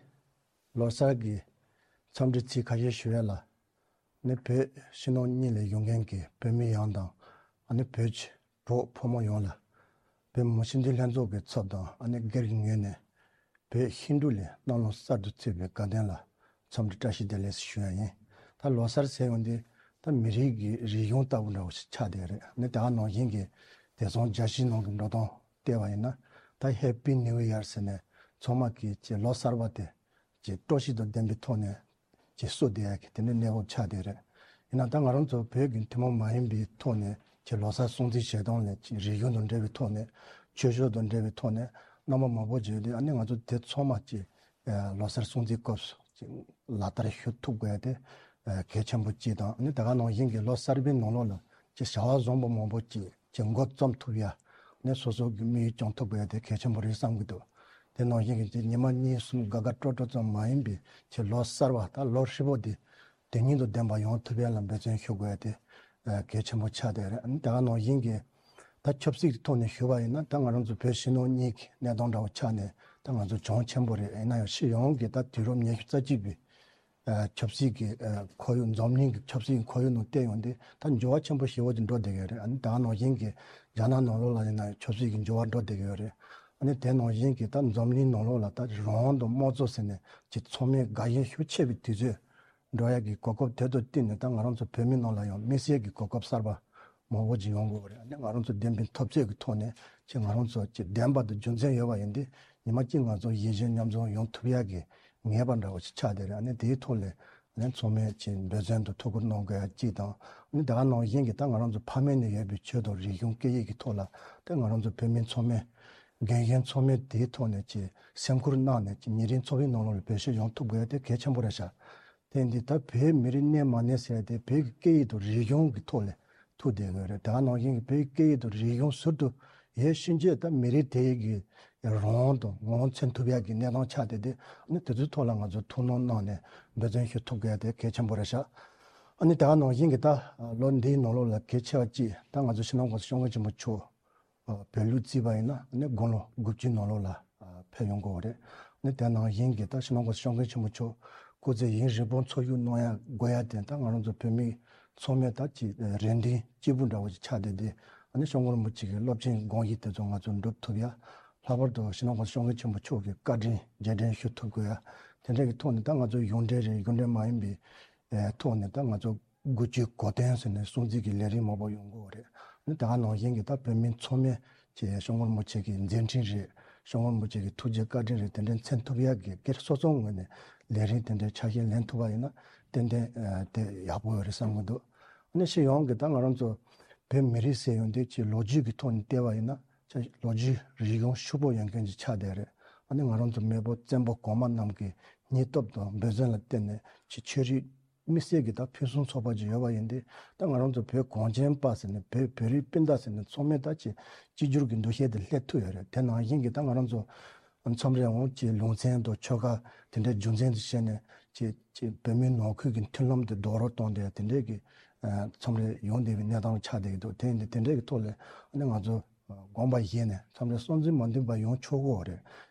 ལོ་གསར་གྱི་འཚམས་འདྲི་ཚིག་ཁ་ཤས་ཞུ་ཡ་ལ། ནི་བོད་ཕྱི་ནང་གཉིས་ལས་ཡོང་མཁན་གྱི་བོད་མི་ཡོངས་དང་། ཨ་ནི་བོད་ཀྱི་གྲོགས་ཕོ་མོ་ཡོངས་ལ། བོད་མི་མང་སྤྱི་འཐུས་ལྷན་ཚོགས་ཀྱི་ཚབ་དང་ཨ་ནི་སྒེར་གྱི་ངོས་ནས་བོད་ཤིང་འབྲུག་ལོའི་གནམ་ལོ་གསར་དུ་ཚུད་པའི་དགའ་སྟོན་ལ་འཚམས་འདྲི་བཀྲ་ཤིས་བདེ་ལེགས་ཞུ་ཡ་ཡིན། ད་ལོ་གསར་ཟེར་ཡོང་དུས་ད་མི་རིགས་ཀྱི་རིག་གཞུང་ལྟ་བུ་འདྲ་བོ་ཞིག་ཆགས་བསྡད་རེད། ནི་ད་ག་ནང་བཞིན་གྱི་དེང་སང་རྒྱལ་སྤྱིའི་ནང་གི་འགྲོ་སྟངས་བལྟས་པ་ཡིན་ན། ད་ཧེ་པི་ནིའུ་ཡར་ཟེར་ནས་ཚང་མ་གིས་ཀྱི་ལོ་གསར་པ་དེ་ཀྱི་སྤྲོ་སྐྱིད་དང་ལྡན་པའི་ཐོག་ནས་ཀྱི་བསུ་བསྡད་ཡ་གི་དེ་འདྲའི་གནས་བབ་ཆགས་བསྡད་རེད། ཡིན་ན་ད་ང་རང་ཚོ་བོད་ཀྱི་ཐུན་མོང་མ་ཡིན་པའི་ཐོག་ནས་ཀྱི་ལོ་གསར་སྲུང་བརྩི་བྱེད་སྟངས་ལས་ཀྱི་རིག་གཞུང་དང་འབྲེལ་བའི་ཐོག་ནས། ཆོས་ཕྱོགས་དང་འབྲེལ་བའི་ཐོག་ནས་རྣམ་པ་མང་པོ་བརྗོད་དེ། ཨ་ནི་ང་ཚོ་དེ་ཚང་མ་ཀྱི་ལོ་གསར་སྲུང་བརྩིའི་སྐབས་སུ་ལག་བསྟར་ཞུ་ཐུབ་དགོས་ཡ་དེ་གལ་ཆེན་པོ་གཅིག་དང་། ཨ་ནི་ད་ག་ནང་བཞིན་གྱི་ལོ་གསར་པའི་ནང་ལོགས་ལ་ཀྱི་བྱ་བ་བཟང་པོ་མང་པོ་ཅིག་ཀྱི་འགོ་རྩོམ་ཐུབ་ཡ། ནས་སོ་སོ་གི་དམིགས་ཡུལ་སྐྱོང་ཐུབ་དགོས་ཡ་དེ་གལ་ཆེན་པོ་རེད་བསམ་གྱི་འདུག་དེ་ནང་བཞིན་གྱི་ཉི་མ་གཉིས་གསུམ་དགའ་དགའ་སྤྲོ་སྤྲོ་ཙམ་མ་ཡིན་པའི་ཀྱི་ལོ་གསར་པ་ད་ལོ་ཧྲིལ་པོ་དེ་དོན་སྙིང་དང་ལྡན་པ་ཡོང་ཐུབ་ཡ་ལ་འབད་བརྩོན་ཞུ་དགོས་ཡ་དེ་གལ་ཆེན་པོ་ཆགས་བསྡད་རེད། ཨ་ནི་ད་ག་ནང་བཞིན་གྱི་ད་ཆབ་སྲིད་ཀྱི་ཐོག་ནས་ཞུས་པ་ཡིན་ན། ད་ང་རང་ཚོ་བོད་ཕྱི་ནང་གཉིས་ཀྱི་གནས་སྟངས་འདྲ་བོ་ཆགས་ནས་ད་ང་ཚོ་གྱོང་ཆེན་པོ་རེད། ཡིན་ན་ཡང་སྤྱི་ཡོངས་ཀྱི་ད་དུས་རབས་ཉི་ཤུ་རྩ་གཅིག་པའི་ཆབ་སྲིད་ཀྱི་ཁོར་ཡུག་འཛམ་གླིང་གི་ཆབ་སྲིད་ཀྱི་ཁོར་ཡུག་ནང་བལྟས་ཡོང་དུས་ད་འགྱུར་བ་ཆེན་པོ་ཞེ་པོ་ཅིག་འགྲོ་བསྡད་ཀྱི་རེད། ཨ་ནི་ད་ག་ནང་བཞིན་གྱི་རྒྱ་ནག་ནང་ལོགས་ལ་ཡིན་ན་ཡང་ཆབ་སྲིད་ཀྱི་འགྱུར་བ་འགྲོ་བསྡད་ཀྱི་ཡོད་རེད། ཨ་ནི་དེ་ནང་བཞིན་གྱི་ད་འཛམ་གླིང་ནང་ལོགས་ལ་ད་རང་དབང་དང་དམངས་གཙོ་ཟེར་ནས་ཀྱི་ཚང་མས་དགའ་ཞེན་ཤུགས་ཆེ་བའི་དུས་ཚོད་འགྲོ་ཡ་གི་གོ་སྐབས་དེ་ཚོ་བསྟུན་ནས་ད་ང་རང་ཚོ་བོད་མི་ནང་ལ་ཡང་དམིགས་བསལ་གྱི་གོ་སྐབས་གསར་པ་མང་པོ་ཅིག་ཡོང་གི་ཡོད་རེད། ཨ་ནི་ང་རང་ཚོ་བདེན་པའི་འཐབ་རྩོད་ཀྱི་ཐོག་ནས་ཀྱི་ང་རང་ཚོ་ཀྱི་བདེན་པ་དང་རྒྱུ་མཚན་ཡོད་པ་ཡིན་དུས་ཉི་མ་གཅིག་ང་ཚོ་ཡིད་ཆེས་མཉམ་འཛོམས་ཡོང་ཐུབ་ཡ་གི་ངེས་པ་འདྲ་བོ་ཞིག་ཆགས་བསྡད་རེད། ཨ་ནི་དེའི་ཐོག་ལ་ཨ་ནི་ཚང་མས་ཀྱི་འབད་བརྩོན་དང་ཐུགས་ཁུར་གནང་དགོས་ཡ་གཅིག་དང་། ཨ་ནི་ད་ག་ནང་བཞིན་གྱི་ད་ང་རང་ཚོ་ཕ་མེས་ནས་ཡོད་པའི་ཆོས་དང་རིག་གཞུང་སྐད་ཡིག་གི་ཐོག་ལ་ད་ང་རང་ཚོ་བོད་མི་ཚང་མས་རྒན་གཞོན་ཚང་མས་དེའི་ཐོག་ནས་ཀྱི་སེམས་ཁུར་གནང་ནས་ཀྱི་ཉིན་རེའི་འཚོ་བའི་ནང་ལོགས་ལ་བེད་སྤྱོད་ཡོང་ཐུབ་དགོས་ཡ་དེ་གལ་ཆེན་པོ་རེད་ཤག་དེ་འདི་ད་བོད་མི་རིགས་གནས་མ་གནས་ཟེར་ཏེ་བོད་ཀྱི་སྐད་ཡིག་དང་རིག་གཞུང་གི་ཐོག་ལ་ཐུག་བསྡད་ཡོད་རེད། ད་ག་ནང་བཞིན་གྱི་བོད་ཀྱི་སྐད་ཡིག་དང་རིག་གཞུང་ཟུར་དུ་ཡོད་ཕྱིན་ཆད་ད་མི་རིགས་དེ་གི་རང་དབང་དང་ངོ་བོ་མཚོན་ཐུབ་ཡག་གི་གནས་སྟངས་ཆགས་བསྡད་དེ། ཨ་ནི་དེ་ཚོའི་ཐོག་ལ་ང་ཚོ་ཐུགས་སྣང་གནང་ནས་འབད་བརྩོན་ཞུ་ཐུབ་དགོས་དེ་གལ་ཆེན་པོ་རེད་ཤག་ཨ་ནི་ད་ག་ནང་བཞིན་གྱི་ད་ལོ་འདིའི་ནང་ལོགས་ལ་གལ་ཆེ་བ་གཅིག་ད་ང་ཚོ་སྤྱི་ནོར་༸གོང་ས་༸སྐྱབས་མགོན་ཆེན་པོ་མཆོག་བོད་ལུགས་བརྩིས་པ་ཡིན་ན་ནི་དགུང་ལོ་དགུ་བཅུའི་ནང་ལོགས་ལ་ཕེབས་ཡོང་གི་ཡོད་རེད། ནི་དེ་ནང་བཞིན་གྱི་ད་སྤྱི་ནོར་༸གོང་ས་༸སྐྱབས་མགོན་ཆེན་པོ་མཆོག་སྐུ་ཚེ་ཡུན་རིང་པོ་འཚོ་བཞུགས་གནང་ཡ་དགོས་ཡ་དེ་ད་ང་རང་ཚོ་བོད་མི་ཚང་མས་ད་ཅིག་རེ་འདུན་གཅིག་པུ་འདྲ་བོ་ཅིག་ཆགས་བསྡད་དེ། ཨ་ནི་༸སྐྱབས་མགོན་རིན་པོ་ཆེ་གི་སློབ་ཆེན་དགོངས་གཞི་དེ་ཚོ་ང་ཚོ་འགྲུབ་ཐུབ་ཡ། ལྷག་པར་དུ་སྤྱི་ནོར་༸གོང་ས་༸སྐྱབས་མགོན་ཆེན་པོ་མཆོག་གི་བཀའ་དྲིན་རྗེས་དྲན་ཞུ་ཐུབ་དགོས་ཡ། དེ་འདྲ་གི་ཐོག་ནས་ད་ང་ཚོ་གཞུང་འབྲེལ་རེད། གཞུང་འབྲེལ་མ་ཡིན་པའི་ཐོག་ནས་ད་ང་ཚོ་དགུ་བཅུའི་གོ་སྟོན་ཟེར་ནས་སྲུང་བརྩི་གི་ལས་རིམ་མང་པོ་ཡོང་གི་ཡོད་རེད། ནི་ད་ག་ནང་བཞིན་གྱི་ད་བོད་མི་ཚང་མས་ཀྱི་༸སྐྱབས་མགོན་རིན་པོ་ཆེ་གི་མཛད་འཕྲིན་རེད།༸སྐྱབས་མགོན་རིན་པོ་ཆེ་གི་ཐུགས་རྗེ་བཀའ་དྲིན་རེད། དེ་འདྲ་མཚོན་ཐུབ་ཡག་གི་སྒེར་སོ་སོའི་ངོས་ནས་ལས་རིམ་དེ་འདྲའི་ཆ་ཤས་ལེན་ཐུབ་པ་ཡིན་ན་ཏན་ཏན་དེ་ཡག་པོ་ཡོད་རེད་བསམ་གྱི་འདུག་ནི་སྤྱི་ཡོངས་ཀྱི་ད་ང་རང་ཚོ་བོད་མི་རིགས་ཟེར་ཡོང་དུས་ཀྱི་ལོ་རྒྱུས་ཀྱི་ཐོག་ནས་བལྟས་པ་ཡིན་ན་ལོ་རྒྱུས་རིག་གཞུང་ཕྱུག་པོ་ཡོད་མཁན་ཅིག་ཆགས་བསྡད་རེད། ཨ་ནི་ང་རང་ཚོ་མེས་པོ་བཙན་པོ་གོང་མ་རྣམས་ཀྱི་སྙིང་སྟོབས་དང་འབད་བརྩོན་ལ་བརྟེན་ནས་ཀྱི་ཆོས་རིག་དམིགས་བསལ་གྱི་ད་ཕུན་སུམ་ཚོགས་པ་ཅིག་ཡོད་པ་ཡིན་ཏེ། ད་ང་རང་ཚོ་བོད་གངས་ཅན་པ་ཟེར་ནས་བོད་བོད་རིགས་སྤུན་ཟླ་ཟེར་ནས་ཚང་མས་ད་ཅིག་གཅིག་གྱུར་གྱི་འདུ་ཤེས་དེ་སླེབས་ཐུབ་ཡོད་རེད། དེ་ནང་བཞིན་གྱི་ད་ང་རང་ཚོ་མཚམས་རེ་འོང་ཅིག་ལུང་ཚན་དང་ཆོལ་ཁ་དེ་འདྲའི་རྒྱུ་མཚན་དུ་བྱས་ནས་ཅིག་ཅིག་བོད་མིའི་ནང་ཁུལ་གྱི་མཐུན་ལམ་དེ་རྡོག་རོལ་གཏོང་བསྡད་དེ་འདྲའི་གི་མཚམས་རེ་ཡོང་བསྡད་པའི་གནས་སྟངས་ཆགས་བསྡད་ཀྱི་འདུག་དེ་ཡིན་དུས་དེ་འདྲའི་གི་ཐོག་ལ་ཨ་ནི་ང་ཚོ་དགོངས་པ་བཞེས་ནས་མཚམས་རེ་བསམ་ཚུལ་མ་མཐུན་པ་ཡོང་ཆོག་གི་ཡོད་རེད།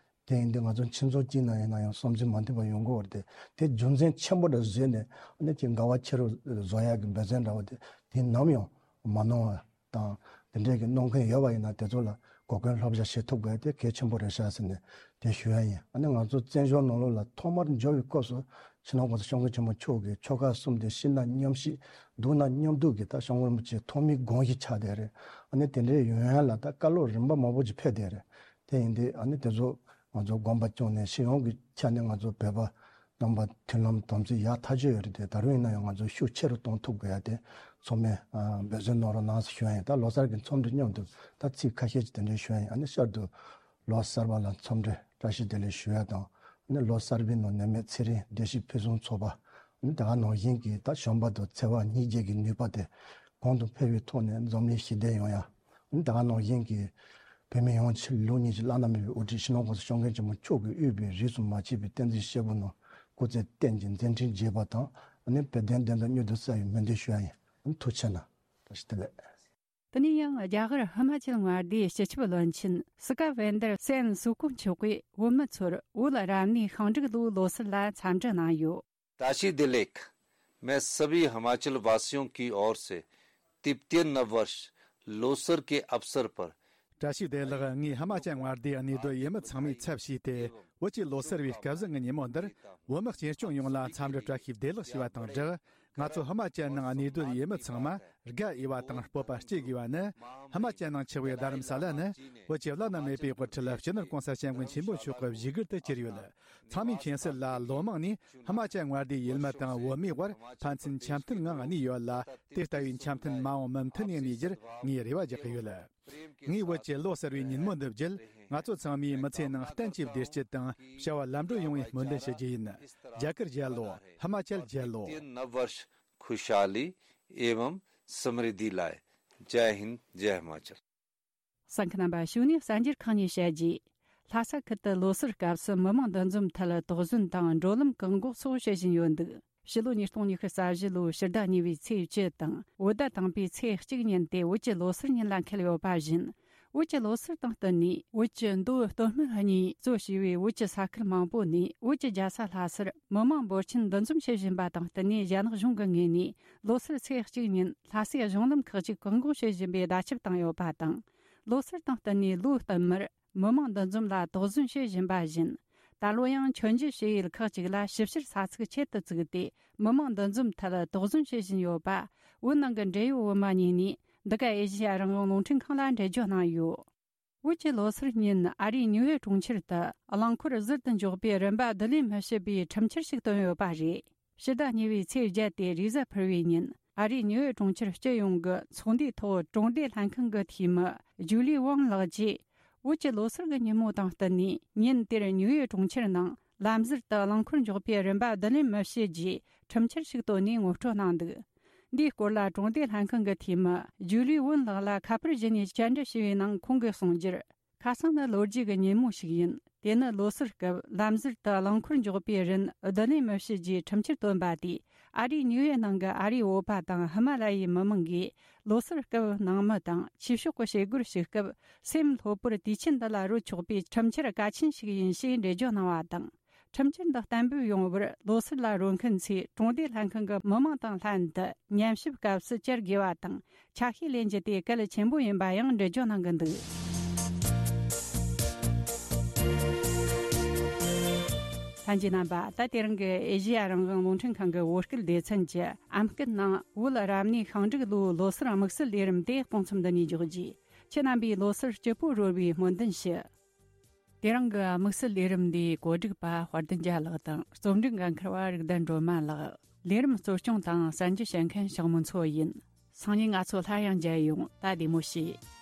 དེ་ཡིན་དུས་ང་ཚོ་ཁྱིམ་ཚང་གཅིག་ནང་ཡིན་ན་ཡང་བསམ་ཚུལ་མ་མཐུན་པ་ཡོང་གི་ཡོད་རེད། དེ་རྒྱུ་མཚན་ཆེན་པོ་འདྲ་བཟོས་ནས་ཨ་ནི་ཅིག་འགལ་བ་ཆེ་རུ་བཟོ་ཡག་གི་འབད་བརྩོན་འདྲ་བོ་དེ་དེ་ནམ་ཡང་མ་གནང་བ་དང་། དེ་འདྲའི་གི་གནང་མཁན་ཡོད་པ་ཡིན་ན་དེ་ཚོ་ལ་གོ་སྐོན་བསླབ་བྱ་བྱེད་ཐུབ་དགོས་དེ་གལ་ཆེན་པོ་རེད་ཤག་ཟེར་ནས་དེ་ཞུ་ཡ་ཡིན། ཨ་ནི་ང་ཚོ་བཙན་བྱོལ་ནང་ལོགས་ལ་ཐོག་མར་འབྱོར་བའི་སྐབས་སུ་སྤྱི་ནོར་༸གོང་ས་༸སྐྱབས་མགོན་ཆེན་པོ་མཆོག་གིས་ཆོལ་ཁ་གསུམ་དེ་ཤི་ན་མཉམ་ཤི་སྡུག་ན་མཉམ་སྡུག་གི་ད་༸སྐྱབས་མགོན་རིན་པོ་ཆེའི་ཐོག་མའི་དགོངས་གཞི་ཆགས་བསྡད་རེད། ཨ་ནི་དེ་འདྲའི་ཡོང་ཡ་ལ་ད་བཀའ་སློབ་རིམ་པ་མང་པོ་ཅིག་ཕེབས་བསྡད་རེད། དེ་ཡིན་དུས་ཨ་ནི་དེ་ཚོ་ང་ཚོ་དགོངས་པ་བཅངས་ནས་སྤྱི་ཡོངས་ཀྱི་ཆ་ནས་ང་ཚོ་བོད་པ་རྣམ་པ་མཐུན་ལམ་དམ་ཚིག་ཡག་ཐག་ཆོད་ཡོད་རེད་དེ། ད་རུང་ཡིན་ན་ཡང་ང་ཚོ་ཤུགས་ཆེ་རུ་གཏོང་ཐུབ་དགོས་ཡ་དེ་ཚང་མས་ཨ་འབད་བརྩོན་གནང་རོགས་གནང་ཟེར་ཞུ་ཡ་ཡིན། ད་ལོ་གསར་གྱི་འཚམས་འདྲི་མཉམ་དུ་ད་ཚིག་ཁ་ཤས་ཅིག་དེ་འདྲ་ཞུ་ཡ་ཡིན། ཨ་ནི་བསྐྱར་དུ་ལོ་གསར་པ་ལ་འཚམས་འདྲི་བཀྲ་ཤིས་བདེ་ལེགས་ཞུ་ཡ་དང་། ཨ་ནི་ལོ་གསར་པའི་ནང་ནད་མེད་ཚེ་རིང་བདེ་སྐྱིད་ཕུན་སུམ་ཚོགས་པ། ཨ་ནི་ད་ག་ནང་བཞིན་གྱི་ད་བྱམས་པ་དང་བརྩེ་བ་སྙིང་རྗེ་གི་ནུས་པ་དེ་གོང་དུ་འཕེལ་བའི་ཐོག་ནས་འཛམ་གླིང་ཞི་བདེ་ཡོང་ཡ། ཨ་ནི་ད་ག་ནང་བཞིན་གྱི་ བོད་མི་ཡོངས་ཆེད་ལུགས་གཉིས་ཀྱི་བླ་ན་མེད་པའི་དབུ་ཁྲིད་སྤྱི་ནོར་༸གོང་ས་༸སྐྱབས་མགོན་ཆེན་པོ་མཆོག་གིས་དབུས་པའི་རིས་སུ་མ་ཆད་པའི་བསྟན་འཛིན་སྐྱེས་བུ་རྣམས་སྐུ་ཚེ་བརྟན་ཅིང་མཛད་འཕྲིན་རྒྱས་པ་དང་། ཨ་ནི་བོད་དོན་བདེན་མཐའ་མྱུར་དུ་གསལ་བའི་སྨོན་འདུན་ཞུ་ཡ་ཡིན། ཨ་ནི་ཐུགས་རྗེ་གནང་། བཀྲ་ཤིས་བདེ་ལེགས། དེ་ནས་ཡང་རྒྱ་གར་ཧི་མ་ཅལ་མངའ་སྡེའི་སྤྱི་ཁྱབ་བློན་ཆེན་སི་ཀ་ཝེན་དར་སེན་སུ་ཀུ་མཆོག་གིས་བོད་མི་ཚོར་བོད་རབ་གནས་ཤིང་འབྲུག་ལོའི་ལོ་གསར་ལ་འཚམས་འདྲི་གནང་ཡོད། राशि दिलेख। मैं सभी हिमाचल वासियों की ओर से तिब्बतियन नववर्ष लोसर के अवसर पर བཀྲ་ཤིས་བདེ་ལེགས། ངས་ཧི་མ་ཅལ་མངའ་སྡེའི་གནས་སྡོད་ཡུལ་མི་ཚང་མའི་ཚབ་བྱས་ཏེ། བོད་ཀྱི་ལོ་གསར་བའི་སྐལ་བཟང་གི་ཉིན་མོ་འདིར་བོད་མི་སྤྱི་སྐྱོང་ཡོངས་ལ་འཚམས་འདྲི་བཀྲ་ཤིས་བདེ་ལེགས་ཞུ་བ་དང་སྦྲགས། ང་ཚོ་ཧི་མ་ཅལ་ནང་གནས་སྡོད་ཡུལ་མི་ཚང་མ་དགའ་འོས་པ་དང་སྤོབས་པ་སྐྱེ་དགོས་པ་ནི། ཧི་མ་ཅལ་ནང་ཆགས་པའི་རྡ་རམ་ས་ལ་ནི་བོད་ཀྱི་བླ་ན་མེད་པའི་དབུ་ཁྲིད་སྤྱི་ནོར་༸གོང་ས་༸སྐྱབས་མགོན་ཆེན་པོ་མཆོག་གི་བཞུགས་སྒར་དུ་གྱུར་ཡོད། ཚང་མའི་མཁྱེན་གསལ་ལ་ལོ་མང་ནས་ཧི་མ་ཅལ་མངའ་སྡེའི་ཡུལ་མི་དང་བོད་མིའི་དབར་ཕན་ཚུན་འཆམ་མཐུན་ངང་གནས་ཡོད་ལ། དེ་ལྟ་བུའི་འཆམ་མཐུན་མ་འོངས་མུ་མཐུད་ནས་གནས་རྒྱུར་ངས་རེ་བ་རྒྱག་གི་ཡོད། ངས་བོད་ཀྱི་ལོ་གསར་བའི་ཉིན་མོ་འདི་བརྒྱུད། ང་ཚོ་ཚང་མས་མི་ཚེའི་ནང་བརྟན་གྱིས་བདེ་སྐྱིད་དང་བྱ་བ་ལམ་འགྲོ་ཡོང་བའི་སྨོན་འདུན་ཞུ་རྒྱུ་ཡིན། རྒྱ་གར་རྒྱལ་ལོ། ཧི་མ་ཅལ་རྒྱལ་ལོ། नववर्ष खुशहाली एवं समृद्धि लाए। जय हिंद, जय हिमाचल। གསན་མཁན་རྣམ་པ། གཞུག་ནས་གསར་འགྱུར་ཁག་གཉིས་བཤད་རྗེས། ལྷ་ས་ཁུལ་དུ་ལོ་གསར་སྐབས་སུ་མི་མང་འདུ་འཛོམས་ཐད་དོགས་ཟོན་དང་འགྲོ་ལམ་བཀག་འགོག་སོགས་བྱེད་བཞིན་ཡོད་འདུག་ཕྱི་ལོ་ཉིས་སྟོང་ཉི་ཤུ་རྩ་བཞི་ལོའི་ཕྱི་ཟླ་གཉིས་པའི་ཚེས་བཅུ་དང་བོད་ཟླ་དང་པའི་ཚེས་གཅིག་ཉིན་དེ་བོད་ཀྱི་ལོ་གསར་ཉིན་ལ་འཁེལ་ཡོད་པ་བཞིན། བོད་ཀྱི་ལོ་གསར་དང་བསྟུན་ནས་བོད་ཀྱི་མདོ་སྟོད་སྨད་གཉིས་གཙོ་བྱས་པའི་བོད་ཀྱི་ས་ཁུལ་མང་པོ་ནས་བོད་ཀྱི་རྒྱལ་ས་ལྷ་སར་མི་མང་འབོར་ཆེན་འདུ་འཛོམས་བྱེད་བཞིན་པ་དང་བསྟུན་ནས། རྒྱ་ནག་གཞུང་གི་ངོས་ནས་ལོ་སར་ཚེས་གཅིག་ཉིན་ལྷ་སའི་གཞུང་ལམ་ཁག་ཅིག་བཀག་འགོག་བྱེད་བཞིན་པའི་བརྡ་ཁྱབ་བཏང་ཡོད་པ་དང་། ལོ་གསར་དང་བསྟུན་ནས་ལོ་བསྟུད་མར་མི་མང་འདུ་འཛོམས་ལ་དོགས་ཟོན་བྱེད་བཞིན་པ་བཞིན། ད་ལོ་ཡང་མཆོད་མཇལ་བྱེད་ཡུལ་ཁག་ཅིག་ལ་ཞིབ་བཤེར་ས་ཚིགས་ཆེད་དུ་བཙུགས་ཏེ། མི་མང་འདུ་འཛོམས་ཐད་དོགས་ཟོན་བྱེད་བཞིན་ཡོད་པ། བོད་ནང་གི་འབྲེལ་ཡོད་བོད་མི་གཉིས་ནས་འདི་ག་ཨེ་ཤེ་ཡ་རང་དབང་རླུང་འཕྲིན་ཁང་ལ་འགྲེལ་བརྗོད་གནང་ཡོད། བོད་ཀྱི་ལོ་སར་ཉིན་ཨ་རིའི་ཉིའུ་ཡོག་གྲོང་ཁྱེར་དུ་རླངས་འཁོར་ཟུར་དུ་འཇོག་པའི་རིན་པ་བསྡུ་ལེན་མི་བྱེད་པའི་ཁྲིམས་འཆར་ཞིག་བཏོན་ཡོད་པ་རེད། ཕྱི་ཟླ་གཉིས་པའི་ཚེས་བརྒྱད་དེ་རེས་གཟའ་ཕུར་བུའི་ཉིན། ཨ་རིའི་ཉིའུ་ཡོག་གྲོང་ཁྱེར་སྤྱི་ཡོངས་ཀྱི་ཚོགས་འདུའི་ཐོག་གྲོང་སྡེ་ལྷན་ཁང་གི་འཐུས་མི་ཇུ་ལི་ཝང་ལགས་ཀྱིས། བོད་ཀྱི་ལོ་སར་གྱི་ཉིན་མོ་དང་བསྟུན་ནས། ཉིན་དེར་ཉིའུ་ཡོག་གྲོང་ཁྱེར་ནང་ལམ་ཟུར་དུ་རླངས་འཁོར་འཇོག་པའི་རིན་པ་བསྡུ་ལེན་མི་བྱེད་ཅེས་ཁྲིམས་འཆར་ཞིག་བཏོན་ནས་ངོ་སྤྲོད་གནང་འདུག་འདིའི་སྐོར་ལ་གྲོང་སྡེ་ལྷན་ཁང་གི་འཐུས་མི་ཇུ་ལི་ཝུན་ལགས་ལ་ཁ་པར་བརྒྱུད་ནས་བཅར་འདྲི་ཞུས་པའི་ནང་ཁོང་གིས་གསུངས་རྒྱུར། ཁ་སང་ནི་ལོ་རྒྱུས་ཀྱི་ཉིན་མོ་ཞིག་ཡིན། དེ་ནི་ལོ་སར་སྐབས་ལམ་ཟུར་དུ་རླངས་འཁོར་འཇོག་པའི་རིན་བསྡུ་ལེན་མི་བྱེད་ཅེས་ཁྲིམས་འཆར་བཏོན་པ་དེས། ཨ་རིའི་ཉིའུ་ཡོག་ནང་གི་ཨ་རིའི་བོད་པ་དང་ཧི་མ་ལ་ཡའི་མི་མང་གིས་ལོ་སར་སྐབས་ནང་མི་དང་ཆོས་ཕྱོགས་ཀྱི་བྱེད་སྒོར་ཞུགས་སྐབས། སེམས་ལྷོད་པོར་དུས་ཆེན་འདི་ལ་རོལ་ཆོག་པའི་ཁྲིམས་འཆར་གལ་ཆེན་ཞིག་ཡིན་ཞེས་འགྲེལ་བརྗོད་གནང་བ་དང་། ཁྲིམས་འཆར་འདི་གཏན་འབེབས་ཡོང་བར་ལོ་སར་ལ་རོལ་མཁན་ཚོས་གྲོང་སྡེ་ལྷན་ཁང་གི་མི་མང་དང་ལྷན་དུ་ཉན་ཞིབ་སྐབས་སུ་བཅར་དགོས་པ་དང་། ཆ་ཤས་ལེན་རྒྱུ་དེ་གལ་ཆེན་པོ་ཡིན་པ་ཡང་འགྲེལ་བརྗོད་གནང་གི་འདུག་ལྷན་རྒྱས་རྣམ་པ། ད་དེ་རིང་གི་ཨེ་ཤེ་ཡ་རང་དབང་རླུང་འཕྲིན་ཁང་གི་བོད་སྐད་སྡེ་ཚན་གྱི་ཨམ་སྐད་ནང་བོད་རབ་གནས་ཤིང་འབྲུག་ལོའི་ལོ་གསར་དམིགས་བསལ་ལས་རིམ་དེ་གཏོང་མཚམས་འདི་ནས་འཇོག་རྒྱུ། ཁྱེད་རྣམ་པས་ལོ་གསར་སྐྱིད་པོ་རོལ་བའི་སྨོན་འདུན་ཞུ། དེ་རིང་གི་དམིགས་བསལ་ལས་རིམ་འདིའི་གོ་སྒྲིག་པ་དཔལ་ལྡན་རྒྱལ་ལགས་དང་། རྩོམ་སྒྲིག་འགན་འཁུར་བ་རིག་ལྡན་སྒྲོལ་མ་ལགས། ལས་རིམ་གཙོ་སྐྱོང་དང་གསར་འགྱུར་བཤད་མཁན་ཞང་མུན་མཚོ་ཡིན། སང་ཉིན་ང་ཚོ་སླར་ཡང་མཇལ་ཡོང་། ད་བདེ་མོ་བྱོས།